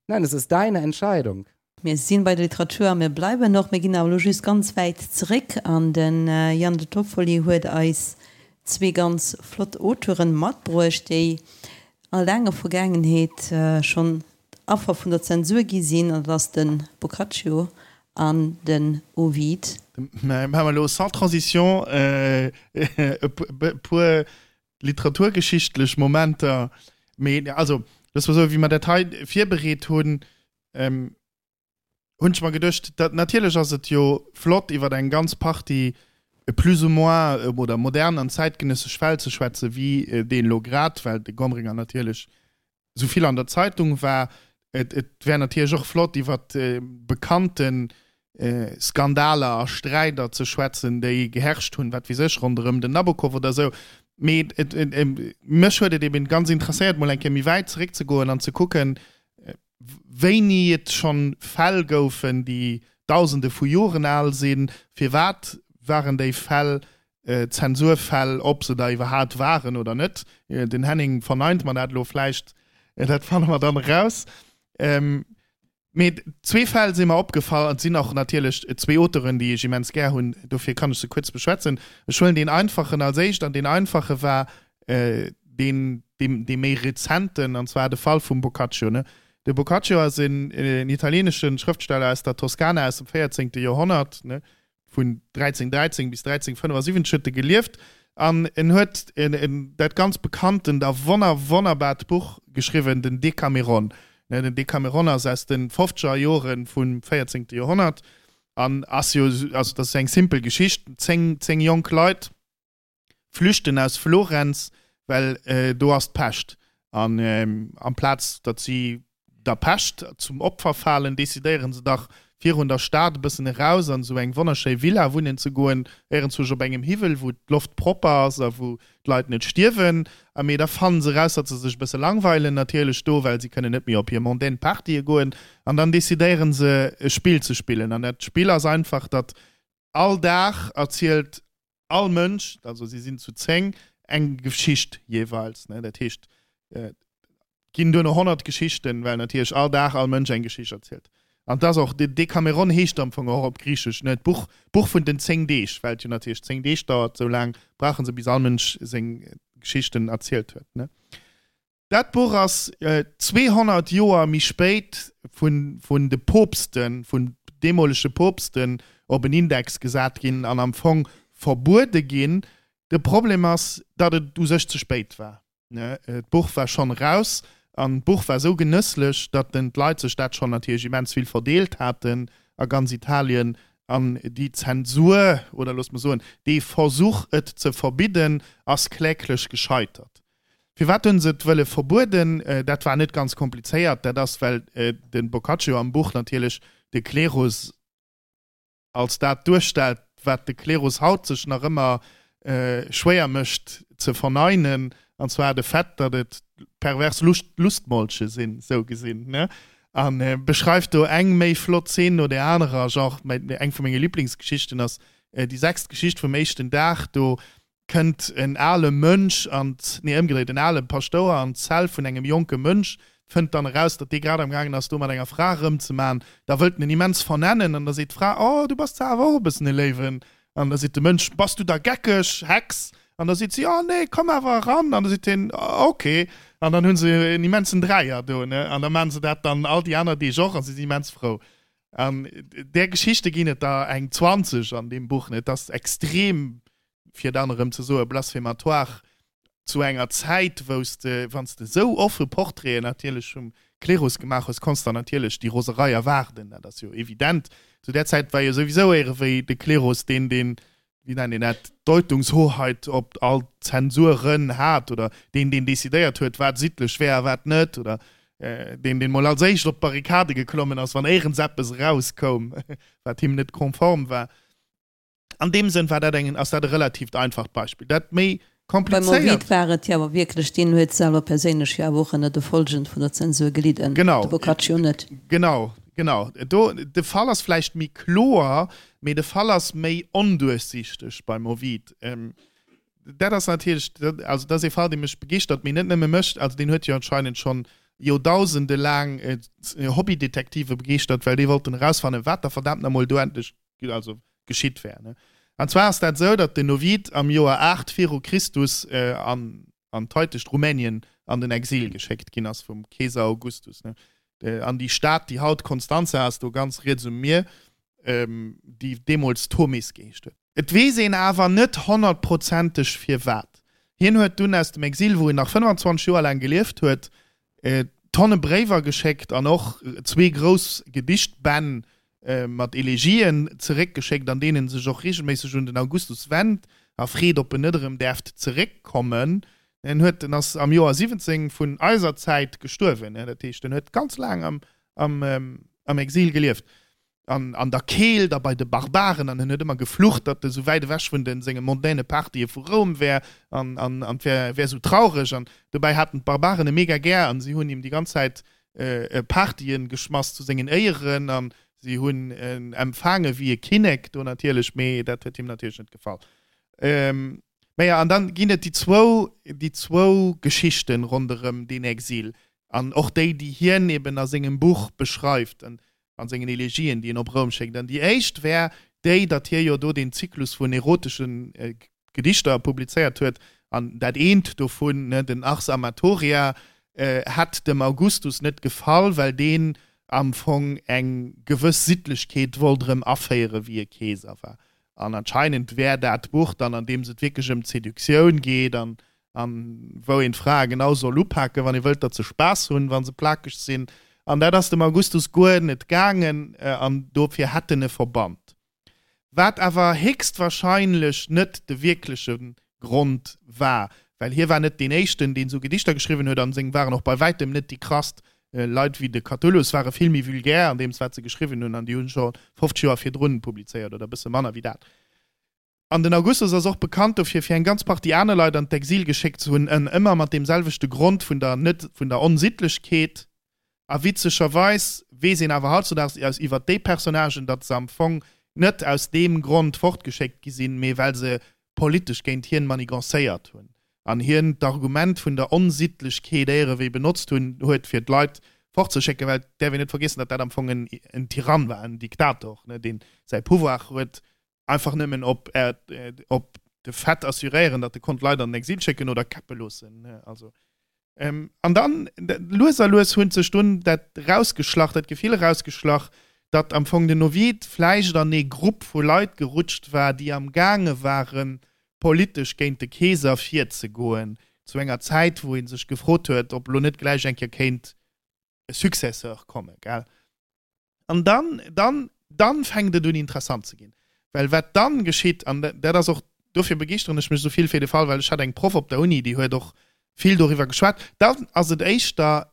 Nein, es ist deine Entscheidung. Mir sinn bei der Literatur a mir bleiwen och. Mir ginn awer elo just ganz wäit zeréck an de Jan De Toffoli huet eis zwee ganz flott Auteuren matbruecht, déi a laanger Vergaangenheet schonn Affer vun der Zensur gi sinn, an dat ass de Boccaccio an den Ovid. Mä maache mer elo sans transition e puer literaturgeschichtlech Momenter. Mee also, loosse mer soen, wéi mer dat hei virbereet hunn, hunn ech mer geduecht, dat natierlech ass et jo flott iwwer eng ganz Partie plus ou moins oder modern an zäitgenëssesch Fäll ze schwätzen, wéi deen elo grad, well de Gomringer natierlech esou vill an der Zeitung war. Et et wär natierlech och flott iwwer bekannte Skandaler a Sträider ze schwätzen, déi geherrscht hunn, wat weess ech, ronderëm den Nabokov oder esou. Mee et mech huet et eben ganz interesséiert, mol eng Kéier méi wäit zeréckzegoen an ze kucken, wéini et schonn Fäll goufen, déi Dausende vu Joren al sinn, firwat waren déi Fäll Zensurfäll, ob se der iwwerhaat waren oder net. Den Henning verneint mer dat elo vläicht, dat fanne mer dann eraus. Mee zwee Fäll si mer opgefall, an et sinn och natierlech zwee Auteuren, déi ech immens gär hunn, dofir kann ech se kuerz beschwätzen. Ech huelen deen einfachen als éischt, an deen einfache war deen, dee méi rezenten, an zwar de Fall vum Boccaccio. De Boccaccio ass en italieenesche Schrëftsteller aus der Toskana aus dem 14. Joerhonnert, vun 1313 bis 1375 huet e gelieft, an en huet dat ganz bekanntent a wonner wonnerbart Buch geschriwwen, den Decameron. Den Decameron ass aus de fofzeger Jore vum 14. Joerhonnert an ass jo, also dat ass eng simpel Geschicht, 10, 10 jonk Leit, flüchten aus Florenz, well do ass d'Pescht. An amplaz datt si der Pescht zum Opfer falen, decidéiere se dach, virun der Stad e bëssen eraus an esou eng wonnerschéi Villa wunnen ze goen, éierenzwousch op engem Hiwwel, wou d'Loft propper ass a wou d'Leit net stierwen. A mee da fannen se eraus, datt se sech e bësse langweilen natierlech do, well si kënnen net méi op hir mondaine Partye goen. An dann decidéiere se, e Spill ze spillen. An dat Spill ass einfach, datt all Dag erzielt all Mënsch, also si sinn zu 10, eng Geschicht jeeweils. Ne? Dat heescht, et ginn duerno 100 Geschichten, well natierlech all Dag all Mënsch eng Geschicht erzielt. An et ass och, de Dekameron heescht am Fong och op Griichesch, ne, d'Buch, d'Buch vun den 10 Deeg, well et jo natierlech 10 Deeg dauert, esou laang brauche se, bis all Mënsch seng Geschichten erzielt huet. Ne? Dat Buch ass 200 Joer méi spéit vun de Poopsten, vun deemolege Poopsten op en Index gesat ginn an am Fong verbuede ginn. De Problem ass, datt et u sech ze spéit war. D'Buch war schonn eraus an d'Buch war esou genësslech, datt den d'Leit sech dat schonn natierlech immens vill verdeelt haten a ganz Italien an déi Zensur, oder loosse mer soen, dee Versuch et ze verbidden, ass kläglech gescheitert. Firwat hunn se et wëlle verbueden? Dat war net ganz komplizéiert. Dat ass, well de Boccaccio am Buch natierlech de Klerus als dat duerstellt, wat de Klerus haut sech nach ëmmer schwéier mécht ze verneinen, an zwar de Fait, datt et pervers Lustmolche sinn, sou gesinn, ne? A beschreift do eng méi flott Zeen no där anerer. Genre, eng vu menge Liblingsgeschichten ass déi sechst Geschicht vum éischten Dag. Do kënnt en ale Mönch an, nee ëmgedréit, en ale Paschtouer an d'Zell vun engem jonke Mönch. Fënnt dann eraus, datt dee grad am gaangen ass, do mat enger Fra erëmzeman. Da wëllt en en immens vernennen an da seet d'Fra, Oh, du bass zwar awer och e bëssen e Léiwen. An da seet de Mënsch, Bass du da geckeg, Hex? An da seet si, Oh nee, komm awer eran. An da seet hien, Ok. An dann hu se en immensen Dräier do, ne? An da maachen se dat dann all déi aner Deeg och a si sinn immens frou. An där Geschichte ginn et der eng 20 an deem Buch, ne? Et ass extrem fir dann erëm ze soen, blasphematoire, zu enger Zäit, wou s de, wann s de esou offe Portraiten natierlech vum Klerus gemaach hues, konns der natierlech déi Roserei erwaarden, dat ass jo evident. Zu där Zäit war jo souwisou éierewéi de Klerus deen, deen, wéi nennt een dat, d'Deutungshoheit op all d'Zensuren hat oder deen, deen decidéiert huet, wat sittlech wär a wat net oder deen, deen mol als éischt op d'Barrikade geklommen ass, wann éierens eppes erauskoum, wat him net konform war. An deem Sënn war dat eng, ass dat e relatiivt einfacht Beispill. Dat méi Beim komplizéiert. Ovid war et jo awer wierklech, deen huet selwer perséinlech jo awer och ënner de Folgen vun der Zensur gelidden, Genau. de Boccaccio net. Genau, genau. Do, de Fall ass vläicht méi kloer, mee de Fall ass méi onduerchsichteg beim Ovid. Dat ass natierlech, also dat ass ee Fall, dee mech begeeschtert, mee net nëmme mech, also deen huet jo anscheinend schonn Joerdausende laang Hobbydetektive begeeschtert, well déi wollten erausfannen, wat da verdaamt nach emol do endlech also geschitt wär. Ne? An zwar ass dat esou, datt den Ovid am Joer 8 viru Christus äh, an, an d'heitegt Rumänien an den Exil geschéckt ginn ass vum Keeser Augustus. Ne? Äh, an déi Stad, déi haut Constanța ass, do ganz riets um Mier, ähm, déi deemools Tomis geheescht huet. Et weess een awer net honnertprozenteg firwat. Hien huet dunn aus dem Exil, wou en nach 25 Joer laang gelieft huet, Tonne Bréiwer geschéckt an och zwee grouss Gedichtbänn mat Elegien zeréckgeschéckt, an deenen en sech och reegelméisseg un den Augustus wennt a freet, ob en net erëm däerft zeréckkommen. En huet, en ass am Joer 17 vun eiser Zäit gestuerwen, dat heescht, en huet ganz laang am Exil gelieft. an an der Keelt a bei de Barbaren an en huet ëmmer geflucht, datt e sou wäit ewech vun de senge mondaine Partye vu Roum wär an an an wär wär sou traureg an dobäi haten d'Barbaren e mega gär an si hunn him déi ganz Zäit Partyen geschmass zu sengen Éieren an si hunn en empfaange wéi e Kinnek do natierlech, mee dat huet him natierlech net gefall. Naja, an dann ginn et déi zwou déi zwou Geschichten ronderëm deen Exil an och déi, déi hien eben a sengem Buch beschreift. An an sengen Elegien, déi en op Roum schéckt. An déi éischt wär déi, datt hie jo do deen Zyklus vun erotesche Gedichter publizéiert huet, an dat eent dovun, den Ars Amatoria, hätt dem Augustus net gefall, well deen am Fong eng gewëss Sittlechkeet wollt erëm aféieren, wéi e Keeser war. An anscheinend wär dat Buch dann, an deem et wierklech ëm d'Seduktioun geet an an wou een d'Frae genau soll upaken, wann ee wëllt, datt se Spaass hunn, wa se plakeg sinn. An dat ass dem Augustus guer net gaangen an dofir hätt en e verbannt. Wat awer héchstwahrscheinlech net de wierkleche Grond war, well hie war net deen éischten, deen esou Gedichter geschriwwen huet an seng waren och bei wäitem net déi krasst. Leit wéi de Catullus ware vill méi vulgär an deems, wat se geschriwwen hunn an déi hunn scho 50 Joer virdrun publizéiert oder e bësse manner wéi dat. An den Augustus ass och bekannt dofir, fir eng ganz Partie aner Leit an d'Exil geschéckt ze hunn, en ëmmer mat deem selwechte Grond vun der net vun der Onsittlechkeet. A witzegerweis weess een awer hautzudaags aus iwwer déi Personnagen, datt se am Fong net aus deem Grond fortgeschéckt gi sinn, mee well se politesch géint hien manigancéiert hunn an hien d'Argument vun der Onsittlechkeet éierewéi benotzt hunn huet, fir d'Leit fortzeschécken. Well et däerf een net vergiessen, datt dat am Fong en Tyrann war, en Diktator, deen säi Pouvoir huet Einfach nëmmen op op de Fait assuréieren, datt e konnt Leit an den Exil schécken oder käppe loossen. Also an dann lues a lues huet sech dunn dat rausgeschlach, dat Gefill erausgeschlach, datt am Fong den Ovid vläicht an ee Grupp vu Leit gerutscht war, déi am gaange waren, politesch géint de Keeser virzegoen, zu enger Zäit, wou ee sech gefrot huet, ob elo net gläich eng Kéier kéint e Successeur kommen, gell? An dann, dann, dann fänkt et un interessant ze ginn. Well wat dann geschitt, an dat ass och, dofir begeeschteren ech mech esou vill fir de Fall, well ech hat eng Proff op der Uni, déi huet och vill doriwwer geschwat, dann ass et éischter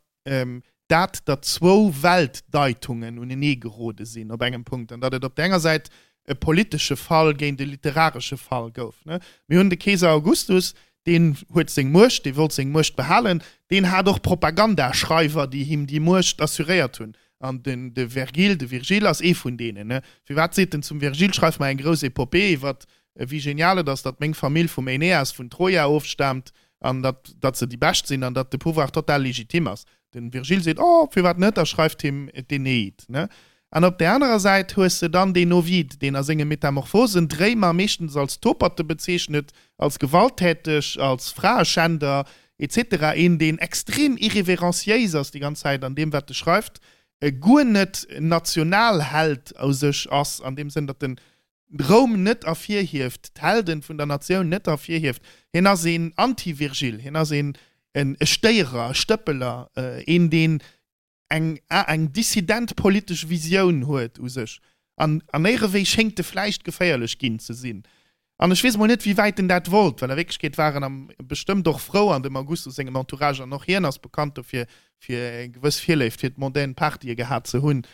dat, datt zwou Weltdeitungen unenee gerode sinn op engem Punkt an datt et op der enger Säit e politesche Fall géint e literaresche Fall gouf. Mir hunn de Keeser Augustus, deen huet seng Muecht, dee wollt seng Muecht behalen, deen hat och Propagandaschreiwer, déi him déi Muecht assuréiert hunn. An den de Vergil, de Virgile ass ee vun deenen, ne? Firwat seet en zum Virgil, schreif mer eng grouss Epopée iwwer wéi genial et ass, datt meng Famill vum Aeneas vun Troja ofstaamt an datt datt se déi Bescht sinn an datt de Pouvoir total legitim ass. Den Virgil seet, oh, firwat net, a schreift him d'Aeneid, ne? An op där anerer Säit hues de dann deen Ovid, deen a senge Metamorphosen d'Réimer meeschtens als Toperte bezeechnet, als gewalttäteg, als Fraeschänder, etc. Een, deen extrem irreverenciéis ass déi ganz Zäit an deem, wat e schreift, guer net Nationalheld u sech ass, an deem Sënn, datt en Roum net ervirhieft, d'Helden vun der Natioun net ervirhieft. Hien ass een Anti-Virgil, hien ass een e Stéierer, e Stëppeler, een, deen eng eng dissident politesch Visioun huet u sech. An an éierewéi schéngt e vläicht geféierlech ginn ze sinn. An ech weess emol net, wéi wäit en dat wollt, well a Wierklechkeet war en am bestëmmt och frou an dem Augustus sengem Entourage, an och hien ass bekannt dofir, fir eng gewëss Virléift fir d'mondaine Partye gehat ze hunn.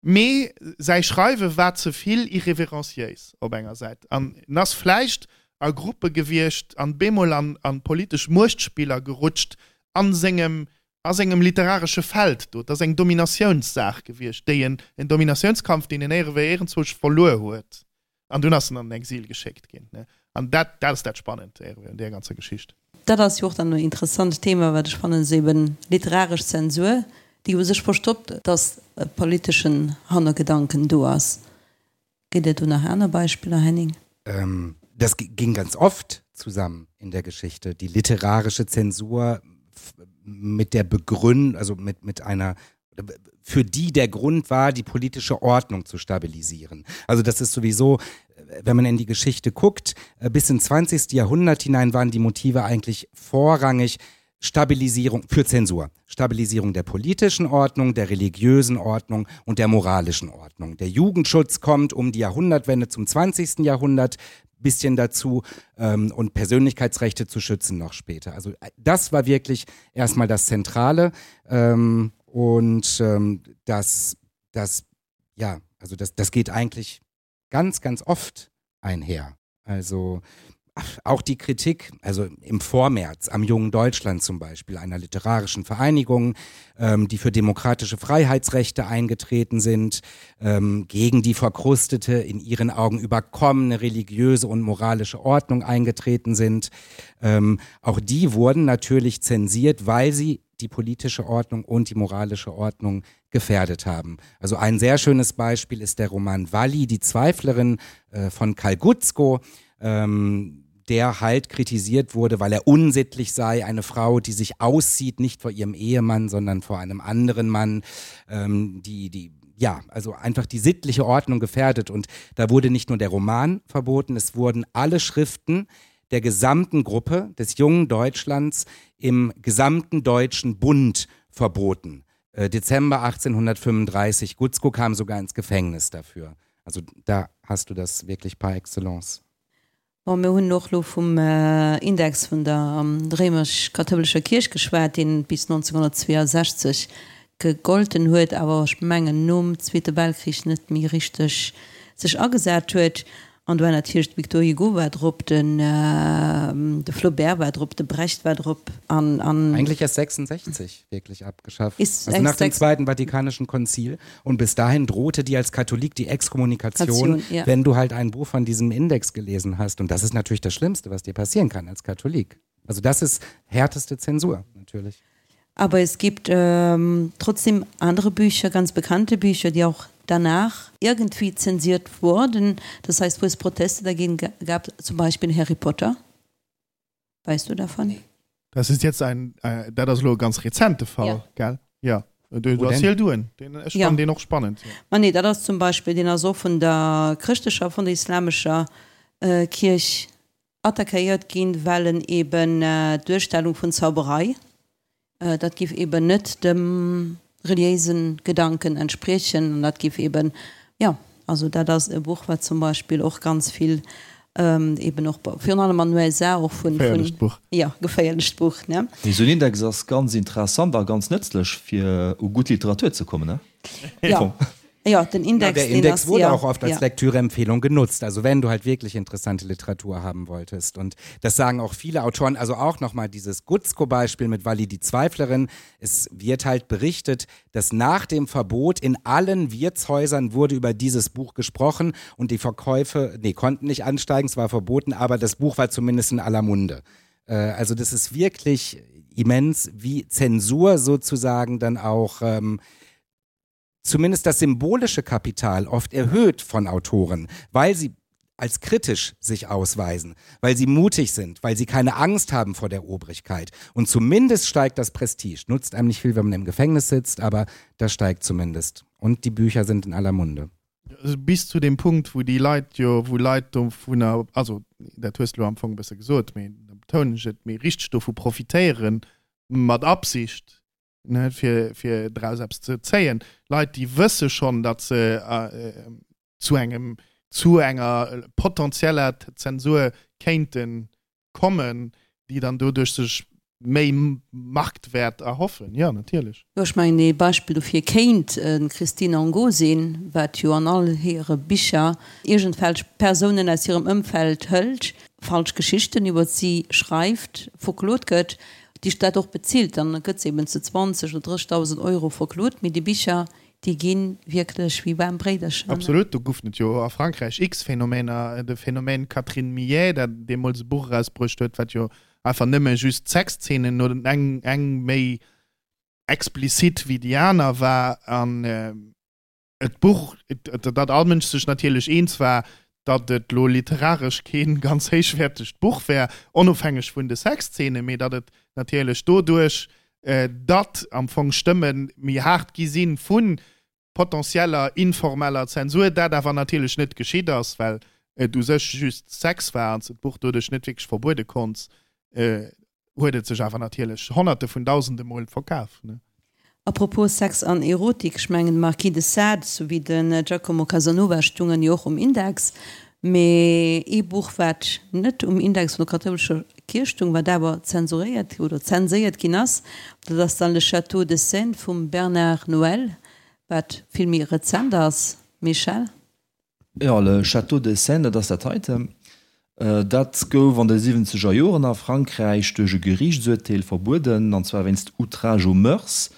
Mee säi Schreiwe war ze vill irreverenciéis op enger Säit an en ass vläicht a Gruppe gewiescht an bemol an an politesch Muechtspiller gerutscht an sengem a sengem literaresche Feld do. Et ass eng Dominatiounssaach gewiescht, déi en, en Dominatiounskampf, deen en éierewéi éierenzwousch verluer huet. An dunn ass en an den Exil geschéckt ginn. An dat, dat ass dat Spannend un deer ganzer Geschicht. Dat ass jo och dann en interessant Thema, wat ech fannen, esou eben literaresch Zensur, déi u sech verstoppt, dass e politeschen Hannergedanken do ass. Gëtt et do nach aner Beispiller, Henning? Das ging ganz oft zusammen in der Geschichte, die literarische Zensur mit der Begründung, also mit, mit einer für die der Grund war, die politische Ordnung zu stabilisieren. Also das ist sowieso, wenn man in die Geschichte guckt, äh, bis ins 20. Jahrhundert hinein waren die Motive eigentlich vorrangig Stabilisierung für Zensur, Stabilisierung der politischen Ordnung, der religiösen Ordnung und der moralischen Ordnung. Der Jugendschutz kommt um die Jahrhundertwende zum 20. Jahrhundert bisschen dazu ähm, und Persönlichkeitsrechte zu schützen noch später. Also äh, das war wirklich erstmal das Zentrale ähm, und ähm, das, das, ja, also das, das geht eigentlich ganz, ganz oft einher. Also auch die Kritik, also im Vormärz am jungen Deutschland zum Beispiel, einer literarischen Vereinigung, ähm, die für demokratische Freiheitsrechte eingetreten sind, ähm, gegen die verkrustete, in ihren Augen überkommene religiöse und moralische Ordnung eingetreten sind. Ähm, auch die wurden natürlich zensiert, weil sie die politische Ordnung und die moralische Ordnung gefährdet haben. Also ein sehr schönes Beispiel ist der Roman Walli, die Zweiflerin äh, von Karl Gutzko, ähm, der halt kritisiert wurde, weil er unsittlich sei, eine Frau, die sich aussieht, nicht vor ihrem Ehemann, sondern vor einem anderen Mann, ähm, die, die, ja, also einfach die sittliche Ordnung gefährdet. Und da wurde nicht nur der Roman verboten, es wurden alle Schriften der gesamten Gruppe des jungen Deutschlands im gesamten deutschen Bund verboten. Äh, Dezember 1835 Gutzko kam sogar ins Gefängnis dafür. Also da hast du das wirklich par excellence. Bon, mir hunn och elo vum Index vun der réimesch-kathoulescher Kierch geschwat, deen bis 1962 gegolten huet, awer ech mengen nom Zweete Weltkrich net méi richteg sech agesat huet. An do war natierlech de Victor Hugo war drop, den de Flaubert war drop, de Brecht war drop an, an. Eigentlich erst 66 wirklich abgeschafft. Ist also nach dem Zweiten Vatikanischen Konzil. Und bis dahin drohte dir als Katholik die Exkommunikation, ja. wenn du halt ein Buch von diesem Index gelesen hast. Und das ist natürlich das Schlimmste, was dir passieren kann als Katholik. Also das ist härteste Zensur natürlich. Aber es gibt ähm, trotzdem andere Bücher, ganz bekannte Bücher, die auch danach irgendwie zensiert wurden. Das heißt, wo es Proteste dagegen gab, zum Beispiel Harry Potter. Weißt du davon? Das ist jetzt ein äh, dat ass elo e ganz rezente Fall, ja. gell? Ja. Du, du erziel du en. Den, ech ja. fannen deen och spannend. Ja. Ma nee, dat ass zum Beispiel, deen ass och vun der chrëschtlecher, vun der islamescher äh, Kierch attackéiert ginn, well en eben d'Duerstellung vun Zauberei, dat giff eben net dem reliéise Gedanken entspriechen an dat giff eben, jo, also dat ass e Buch, wat zum Beispill och ganz vill eben och virun allem an den USA och vun, Geféierlecht Buch. Jo, geféierlecht Buch, ne? Mee esou en Index ass ganz interessant a ganz nëtzlech, fir u gutt Literatur ze kommen, ne? Jo. Ja, den Index, ja, der Index wurde ja, auch oft als ja. Lektüreempfehlung genutzt. Also wenn du halt wirklich interessante Literatur haben wolltest. Und das sagen auch viele Autoren, also auch nochmal dieses Gutzko-Beispiel mit Walli die Zweiflerin. Es wird halt berichtet, dass nach dem Verbot in allen Wirtshäusern wurde über dieses Buch gesprochen und die Verkäufe, nee, konnten nicht ansteigen, es war verboten, aber das Buch war zumindest in aller Munde. Äh, also das ist wirklich. immens, wie Zensur sozusagen dann auch ähm, zumindest das symbolische Kapital oft erhöht von Autoren, weil sie als kritisch sich ausweisen, weil sie mutig sind, weil sie keine Angst haben vor der Obrigkeit. Und zumindest steigt das Prestige. Nutzt einem nicht viel, wenn man im Gefängnis sitzt, aber das steigt zumindest. Und die Bücher sind in aller Munde. Bis zu dem Punkt, wou déi Leit jo, wou Leit dovunner, also dat hues de elo am Fong e bësse gesot, mee da betounen ech et, mee richteg dovu profitéieren, mat Absicht, ne, fir, fir draus eppes ze zéien. Leit, déi wësse schonn, datt se zu engem, zu enger potenzieller Zensur kéinten kommen, déi dann doduerch sech méi Marktwäert erhoffen. Jo, natierlech. Jo, ech mengen, ee Beispill dofir kéint d'Christine Angot sinn, wat jo an all hire Bicher iergendwelch Persounen aus hirem Ëmfeld hëlt, falsch Geschichten iwwer si schreift, verklot gëtt, déi dat och bezilt. Dann gëtt se eben zu 20 oder 30.000 Euro verklot, mee déi Bicher, Déi gi wierklech wéi waarm Bréidercher. Absolut, do goufen et jo a Frankräich x Phänomener. De Phänomen Catherine Millet, dat deemools e Buch erausbruecht huet, wat jo einfach nëmme just Sexzeenen oder eng, eng méi explizit wéi déi aner war. An et Buch, datt all Mënsch sech natierlech eens war, datt et lo literaresch kee ganz héichwäertegt Buch wär, onofhängeg vun de Sexzeenen, mee datt et natierlech doduerch, datt am Fong Stëmme méi haart gi si vu potentieller informeller Zensur, dat awer natierlech net geschitt ass, well et u sech just Sex war an s de d'Buch doduerch net wierklech verbuede konnts, huet et sech awer natierlech Honnerte vun Dausende Mol verkaf. A propos Sex an Erotik, ech mengen de Marquis de Sade souwéi den Giacomo Casanova stungen jo och um Index, mee ee Buch wat net um Index vun der kathoulescher Kierch stung, wat awer zensuréiert oder zenséiert ginn ass, dat ass dann Le Château de Seine vum Bernard Noël, wat vill méi rezent ass. Michel? Jo, Le Château de Seine, dat ass dat heiten. Dat gouf an de siwwenzeger Joren a Frankräich duerch e Geriichtsurteel verbueden, an zwar wéinst Outrage aux mœurs.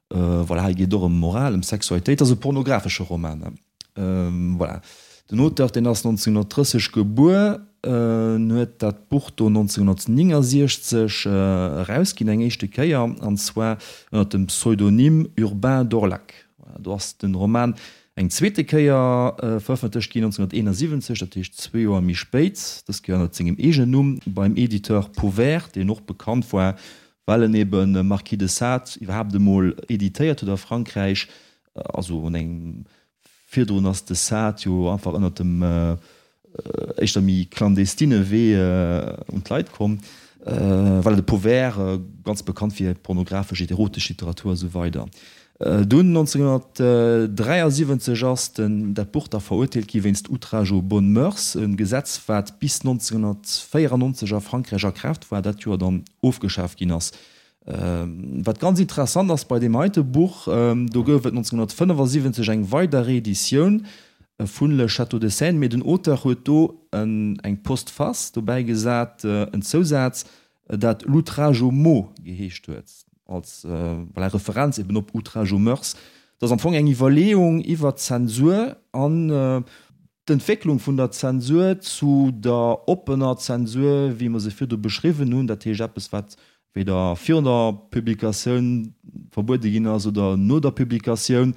Voilà, hei geet et och ëm Moral, ëm Sexualitéit. Dat ass e pornografesche Roman. Voilà, den Auteur, deen ass 1930 gebuer, en huet dat Buch do 1969 erausginn, eng éischte Kéier, an zwar ënner dem Pseudonym Urbain Dorlac. Voilà, do ass den Roman Eng zweete Kéier verëffentlecht ginn 1971, dat heescht zwee Joer méi spéit, dës Kéier ënnert sengem eegenen Numm, beim Editeur Pauvert, deen och bekannt war, well en ebe Marquis de Sade iwwerhaapt emol editéiert huet a Frankräich. Also un engem virdrun ass de Sade jo einfach ënnert dem éischter méi clandestine Wee un d'Leit komm. Voilà, de Pauvert, ganz bekannt fir pornografesch, erotesch Literatur a sou weider. Dunn 1973 ass den dat Buch da verurteelt gi wéinst Outrage aux bonnes mœurs, e Gesetz wat bis 1994 a Frankräich a Kraaft war, dat Joer dann ofgeschaaft ginn ass. Wat ganz interessant ass bei deem heite Buch, do gouf et 1975 eng weider Reeditioun vun Le Château de Seine, mee den Auteur huet do eng Postface dobäi gesat, en Zousaz, dat L'outrage aux mots geheescht huet, als, voilà, Referenz eben op Outrage aux mœurs. Dat ass am Fong eng Iwwerleeung iwwer d'Zensur an d'Entwécklung vun der Zensur zu der oppener Zensur, wéi mer se virdu beschriwwen hunn, dat heescht eppes, wat weder virun der Publikatioun verbuede ginn ass oder no der Publikatioun.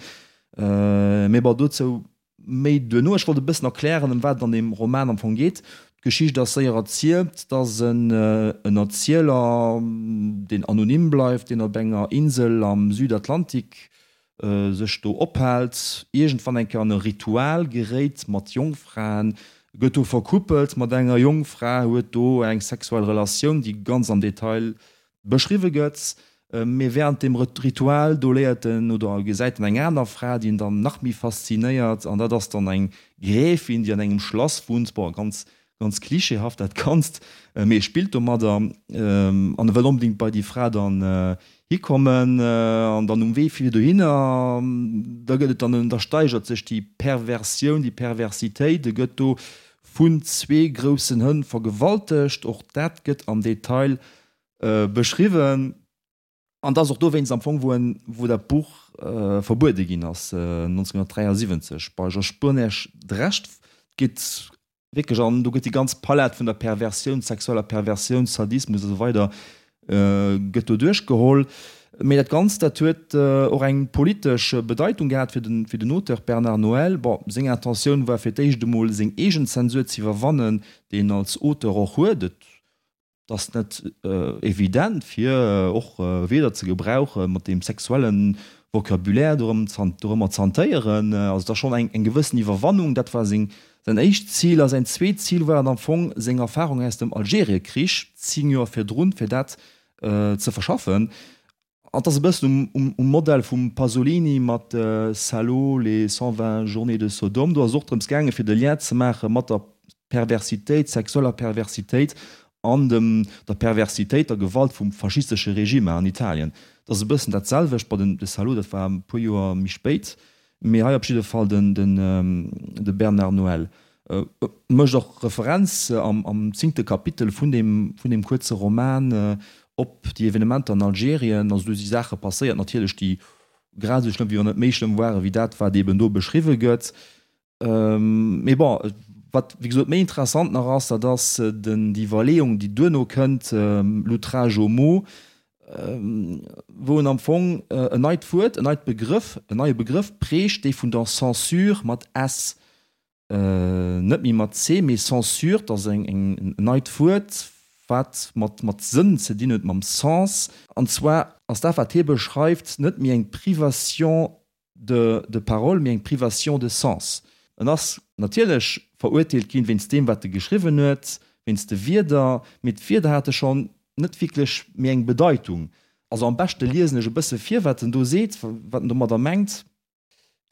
Mee bon, dozou Méi duerno. Ech wollt e bëssen erklären, ëm wat et an deem Roman am Fong geet. D'Geschicht ass séier erzielt. Et ass en Erzieler, deen anonym bleift, deen op enger Insel am Südatlantik sech do ophält, iergendwann eng Kéier an e Ritual geréit mat Jongfraen, gëtt do verkuppelt mat enger Jongfra, huet do eng sexuell Relatioun, déi ganz am Detail Beschriwwe gëtt. Mee wärend dem Ritual, do léiert en oder gesäit en eng aner Fra, déi en dann nach méi faszinéiert, an dat ass dann eng Gräfin, déi an engem Schlass wunnt. Bon, ganz, ganz klischeehaft dat Ganzt, mee e spillt domadder an e wëll onbedéngt bei déi Fra dann hikommen. An dann um Wee fir dohinner, da gëtt et dann, da steigert sech déi Perversioun, déi Perversitéit, e gëtt do vun zwee groussen Hënn vergewaltegt. Och dat gëtt am Detail Beschriwwen. An et ass och dowéinst am Fong, wou en, wou dat Buch verbuede ginn ass, 1973 bei Georges Burnège d'Recht geet wierklech an, do gëtt déi ganz Palett vun der Perversioun, sexueller Perversioun, Sadismus a sou weider. Gëtt do duerchgeholl. Mee dat Ganzt, dat huet och eng politesch Bedeitung gehat fir den, fir den Auteur Bernard Noël. Bon, seng Intentioun war fir d'éischt emol seng eegen Zensur ze iwwerwannen, déi en als Auteur och huet. Et ass net evident fir och Wierder ze gebrauchen, mat deem sexuelle Vocabulaire dorëm, dorëmmer ze hantéieren. Also et ass schonn eng, eng gewëssen Iwwerwannung. Dat war seng Säin éischt Zil a säin zweet Zil war et am Fong, seng Erfarung aus dem Algeriekrich, 10 Joer virdrun, fir dat ze verschaffen. An et ass e bëssen um Modell vum Pasolini mat Salo, les 120 journées de Sodome. Do ass et och drëms gaangen, fir de Lien ze maache mat der Perversitéit, sexueller Perversitéit an dem der Perversitéit, der Gewalt vum faschistesche Regime an Italien. Et ass e bëssen dat selwecht bei den de Salo, dat war e puer Joer méi spéit. Mee hei op jidde Fall den de Bernard Noël mécht och Referenz am zéngte Kapitel vun deem vun deem kuerze Roman op déi Evenementer an Algerien. Also do si Saache passéiert natierlech, déi grad esou schlëmm, wéi wann net méi schlëmm ware wéi dat, wat eeben do beschriwwe gëtt. Mee bon, wat wéi gesot méi interessant nach ass, dat ass den déi Iwwerleeung, déi duerno kënnt, L'outrage aux mots, wou en am Fong en neit Wuert, en neit Begrëff, en neie Begrëff prägt, dee vun der Censure mat s, net méi mat c, mee Censure, dat ass eng en neit Wuert, wat mat mat Sënn ze dinn huet, mam Sens. An zwar ass dat, wat hie beschreift, net méi eng Privation de de parole, mee eng Privation de sens. En ass natierlech verurteelt ginn wéinst deem, wat e geschriwwen huet, wéinst de Wierder, mee d'Wierder hate schonn net wierklech méi eng Bedeitung. Also am beschte liesen ech e bësse vir, wat en do seet, wat en domadder mengt.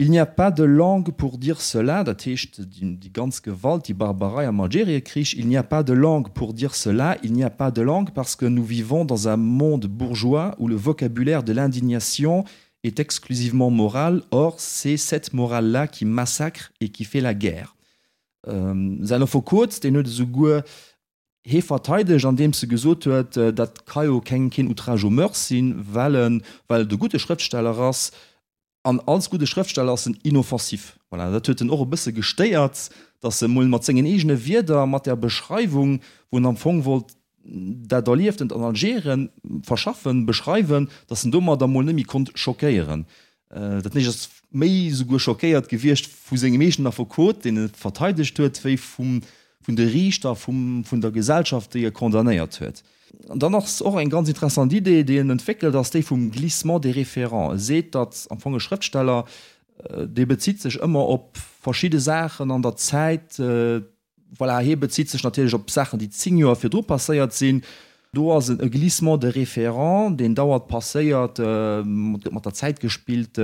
Il n'y a pas de langue pour dire cela, dat heescht déi ganz Gewalt, déi Barbarei am Algeriekrich, il n'y a pas de langue pour dire cela, il n'y a pas de langue parce que nous vivons dans un monde bourgeois où le vocabulaire de l'indignation est exclusivement moral, or c'est cette morale-là qui massacre et qui fait la guerre. Säin Affekot, deen huet esouguer hee verteidegt, andeems e gesot huet, dat ka jo keng keen Outrage aux mœurs sinn, well en well et e gudde Schrëftsteller ass, an als gudde Schrëftsteller ass en inoffensif. Voilà, dat huet en och e bësse gestéiert, datt e mol mat sengen eegene Wierder, mat där Beschreiwung, wou en am Fong wollt dat Erlieftent an Algerien verschaffen, beschreiwen, datt en domadder mol net méi konnt schockéieren. Dat heescht, ass méi esouguer schockéiert gewiescht vu sengem eegenen Affekot, deen e verteidegt huet, wéi vum, vun de Riichter, vum, vun der Gesellschaft, déi e condamnéiert huet. An dann ass och eng ganz interessant Idee, déi en entwéckelt, ass déi vum Glissement des référents. E seet, datt am Fong e Schrëftsteller, dee bezitt sech ëmmer op verschidde Saachen an der Zäit, Voilà, hie bezitt sech natierlech op Saachen, déi 10 Joer virdru passéiert sinn. Do ass e Glissement de référent, deen dauernd passéiert, et gëtt mat der Zäit gespillt.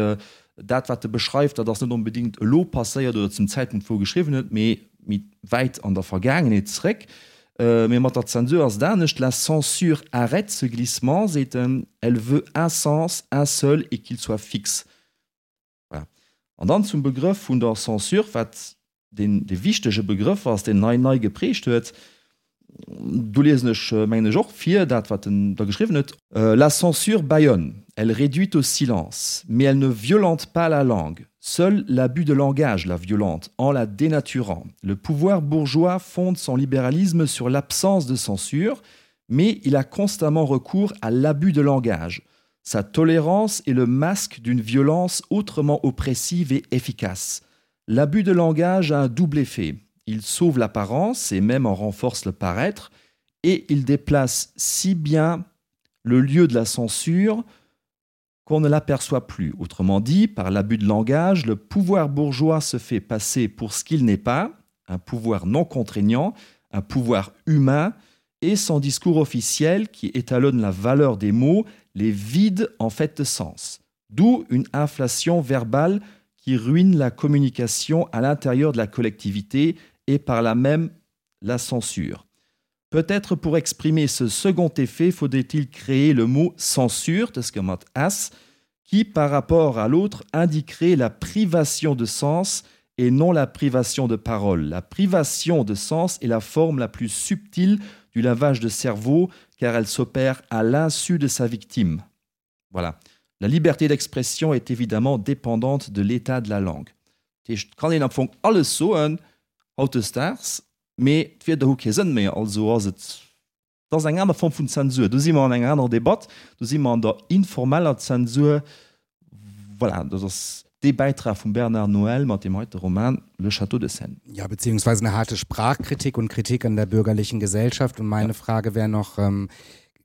Dat, wat e beschreift, dat ass net onbedéngt elo passéiert oder zum Zäitpunkt, wou e geschriwwen huet, mee méi wäit an der Vergaangenheet zréck. Mee mat der Zensur ass et anescht, La censure arrête ce glissement, seet en, elle veut un sens, un seul et qu'il soit fixe. Voilà. An dann zum Begrëff vun der Censure, wat deen dee wichtege Begrëff ass, deen en hei nei geprägt huet. Do liesen ech, mengen ech, och vir dat, wat en da geschriwwen huet. La censure bâillonne, elle réduit au silence, mais elle ne violente pas la langue. Seul l'abus de langage la violente en la dénaturant. Le pouvoir bourgeois fonde son libéralisme sur l'absence de censure, mais il a constamment recours à l'abus de langage. Sa tolérance est le masque d'une violence autrement oppressive et efficace. L'abus de langage a un double effet. Il sauve l'apparence et même en renforce le paraître, et il déplace si bien le lieu de la censure qu'on ne l'aperçoit plus. Autrement dit, par l'abus de langage, le pouvoir bourgeois se fait passer pour ce qu'il n'est pas, un pouvoir non contraignant, un pouvoir humain, et son discours officiel qui étalonne la valeur des mots les vide en fait de sens. D'où une inflation verbale qui ruine la communication à l'intérieur de la collectivité et par là même la censure. Peut-être pour exprimer ce second effet, faudrait-il créer le mot censure de ce mot as qui par rapport à l'autre indiquerait la privation de sens et non la privation de parole. La privation de sens est la forme la plus subtile du lavage de cerveau car elle s'opère à l'insu de sa victime. Voilà. La liberté d'expression est évidemment dépendante de l'état de la langue. Dat heescht, et kann een am Fong alles soen hautdesdaags, mee d'Wierder hu kee Sënn méi, also ass et. Dat ass eng aner Form vun Zensur. Do si mer an enger anerer Debatt, do si mer an der informeller Zensur. Voilà, dat ass dee Bäitrag vum Bernard Noël mat deem heite Roman Le Château de Seine. Ja, beziehungsweise eine harte Sprachkritik und Kritik an der bürgerlichen Gesellschaft. Und meine Frage wäre noch,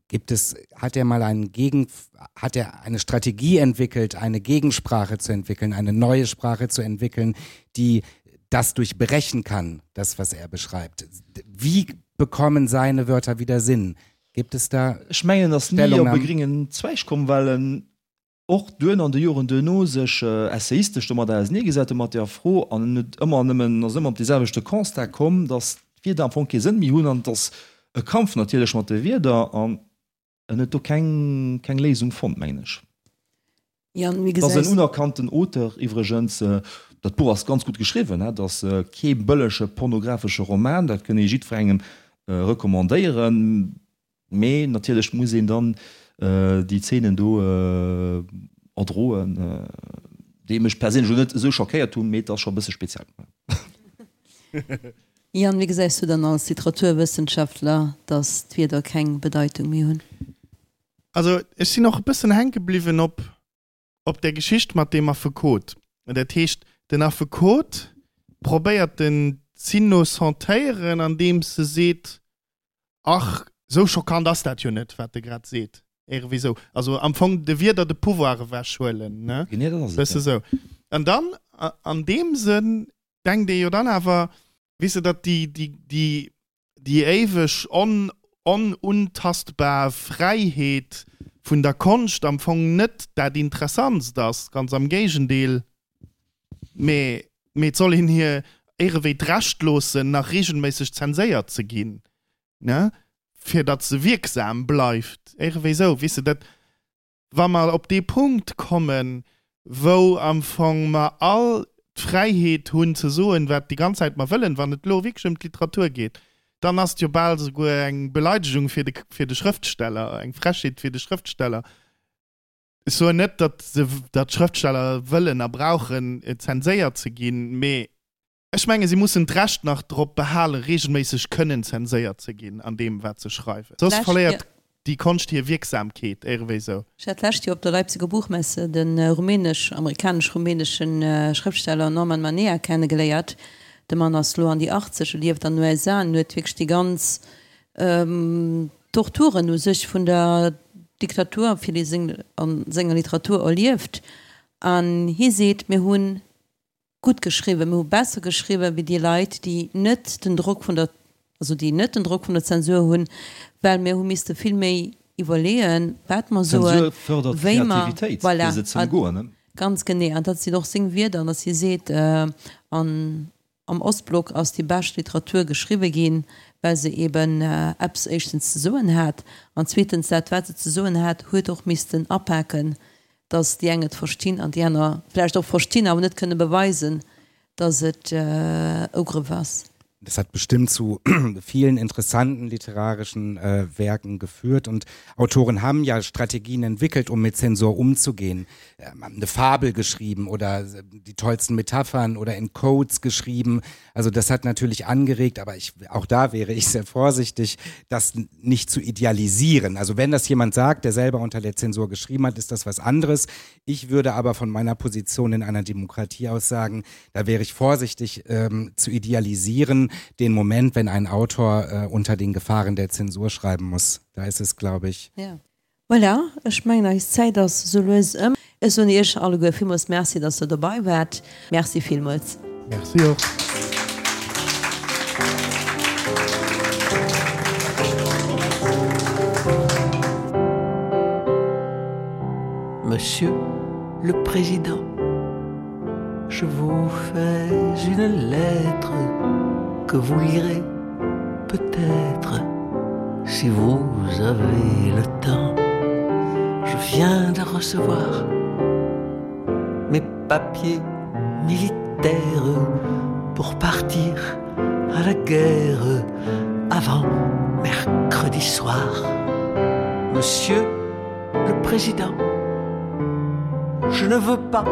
gibt es, hat er mal einen Gegen, hat er eine Strategie entwickelt, eine Gegensprache zu entwickeln, eine neue Sprache zu entwickeln, die das durchbrechen kann, das, was er beschreibt? Wie bekommen seine Wörter wieder Sinn? Gibt es da Ech mengen, en ass ni op e gréngen Zweig komm, well en och duerno an de Joren duerno sech essayistesch domadder auseneegesat huet, mat där Fro, an en huet ëmmer nëmmen, ass ëmmer op dee selwechte Constat komm, datt d'Wierder am Fong kee Sënn méi hunn an et ass e Kampf natierlech mat de Wierder an en huet do keng, keng Léisung fonnt, mengen ech. Jan, wéi Et ass gesäis. en unerkannten Auteur iwwregens. Dat Buch ass ganz gutt geschriwwen, et ass kee bëllege pornographesche Roman, dat kënn ee jiddwerengem recommandéieren. Mee natierlech muss een dann déi Zeenen do erdroen, déi mech perséinlech elo net esou schockéiert hunn, mee et ass scho e bësse speziell. Yann, wéi gesäis du dann als Literaturwëssenschaftler, datt d'Wierder keng Bedeitung méi hunn? Also ech sinn och e bëssen hänke bliwwen op op där Geschicht mat deem Affekot. Dat heescht, den Affekot probéiert den z'innocentéieren, andeems e seet, Ach, esou schockant ass dat jo net, wat e grad seet. Iergendwéi esou. Also am Fong de Wierder de Pouvoir ewechhuelen, ne? Genee dat ass et, Bësse ja. sou. An dann, an deem Sënn denkt ee jo dann awer, weess de, datt déi, déi, déi, déi éiweg on, onuntastbar Fräiheet vun der Konscht am Fong net dat Interessantst ass, ganz am Géigendeel, mee, mee et soll een hir éirewéi d'Recht loossen, nach regelméisseg zenséiert ze ginn, ne, fir datt se wierksam bleift, éirewéi esou, weess de, dat. Wa mer op dee Punkt kommen, wou am Fong mer all d'Fräiheet hunn ze soen, wat déi ganz Zäit mer wëllen, wann et elo wierklech ëm d'Literatur geet, dann ass et jo bal souguer eng Beleidegung fir de, fir de Schrëftsteller, eng Frechheet fir de Schrëftsteller. Ech soen net, datt se, datt d'Schrëftsteller wëllen a brauchen, zenséiert ze ginn, mee Ech menge si mussen d'Recht nach drop behalen, regelméisseg kënnen zenséiert ze ginn an deem, wat se schreiwen. Soss verléiert déi Konscht hir Wierksamkeet, éirewéi sou. Ech hat d'lescht Joer op der Leipziger Buchmesse de rumänesch, amerikanesch-rumänesche Schrëftsteller Norman Manea kennegeléiert. De Mann ass lo an déi 80, e lieft an den USA an huet wierklech déi ganz Torturen u sech vun der Diktatur a senger Literatur erlieft. An hie seet, Mir hunn gutt geschriwwen, mir hu besser geschriwwen wéi déi Leit, déi net den Drock vun der, also déi net den Drock vun der Zensur hunn, well mir hu misste vill méi iwwerleeën, wat mer soen, Zensur fërdert wéi mer, d'Kreativitéit, voilà, fir se ze ëmgoen, ne? Ganz genee. An dat sinn och seng Wierder, dass hie seet, an am Ostblock ass déi bescht Literatur geschriwwe ginn, well se eben eppes éischtens ze soen hat an zweetens dat, wat se ze soen hat, huet och missten apaken, dass déi eng et verstinn an déi aner vläicht och verstinn, awer net kënne beweisen, dass et Ugrëff ass. Das hat bestimmt zu vielen interessanten literarischen äh, Werken geführt und Autoren haben ja Strategien entwickelt, um mit Zensur umzugehen. Ähm, haben eine Fabel geschrieben oder äh, die tollsten Metaphern oder in Codes geschrieben. Also das hat natürlich angeregt, aber ich, auch da wäre ich sehr vorsichtig, das nicht zu idealisieren. Also wenn das jemand sagt, der selber unter der Zensur geschrieben hat, ist das was anderes. Ich würde aber von meiner Position in einer Demokratie aus sagen, da wäre ich vorsichtig ähm, zu idealisieren den Moment, wenn ein Autor äh, unter den Gefahren der Zensur schreiben muss. Da ist es glaube ich. Ja. Voilà, ech mengen eis Zäit ass sou lues ëm. Ech soen iech alleguer villmools Merci, dass der dobei waart. Merci villmools. Merci och. Monsieur le Président, je vous fais une lettre que vous lirez peut-être si vous avez le temps. Je viens de recevoir mes papiers militaires pour partir à la guerre avant mercredi soir. Monsieur le Président, je ne veux pas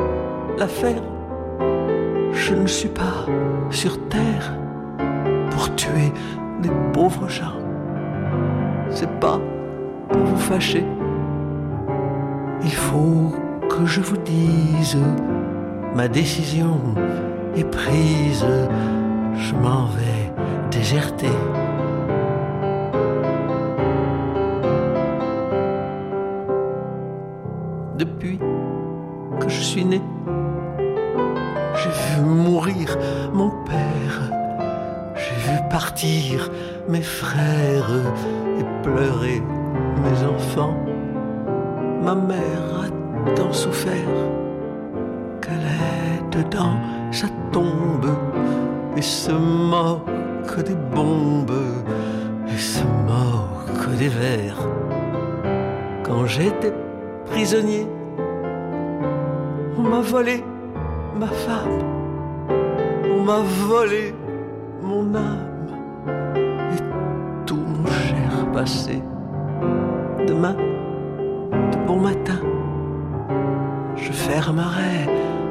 la faire. Je ne suis pas sur terre pour tuer des pauvres gens. C'est pas pour vous fâcher. Il faut que je vous dise, ma décision est prise, je m'en vais déserter. Depuis que je suis né, j'ai vu mourir mon père, j'ai vu partir mes frères et pleurer mes enfants. Ma mère a tant souffert qu'elle est dedans sa tombe et se moque des bombes et se moque des vers. Quand j'étais prisonnier, on m'a volé ma femme, on m'a volé mon âme et tout mon cher passé. Demain, de bon matin, je fermerai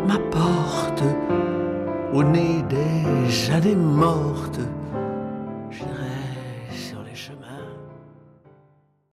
ma porte au nez des années mortes.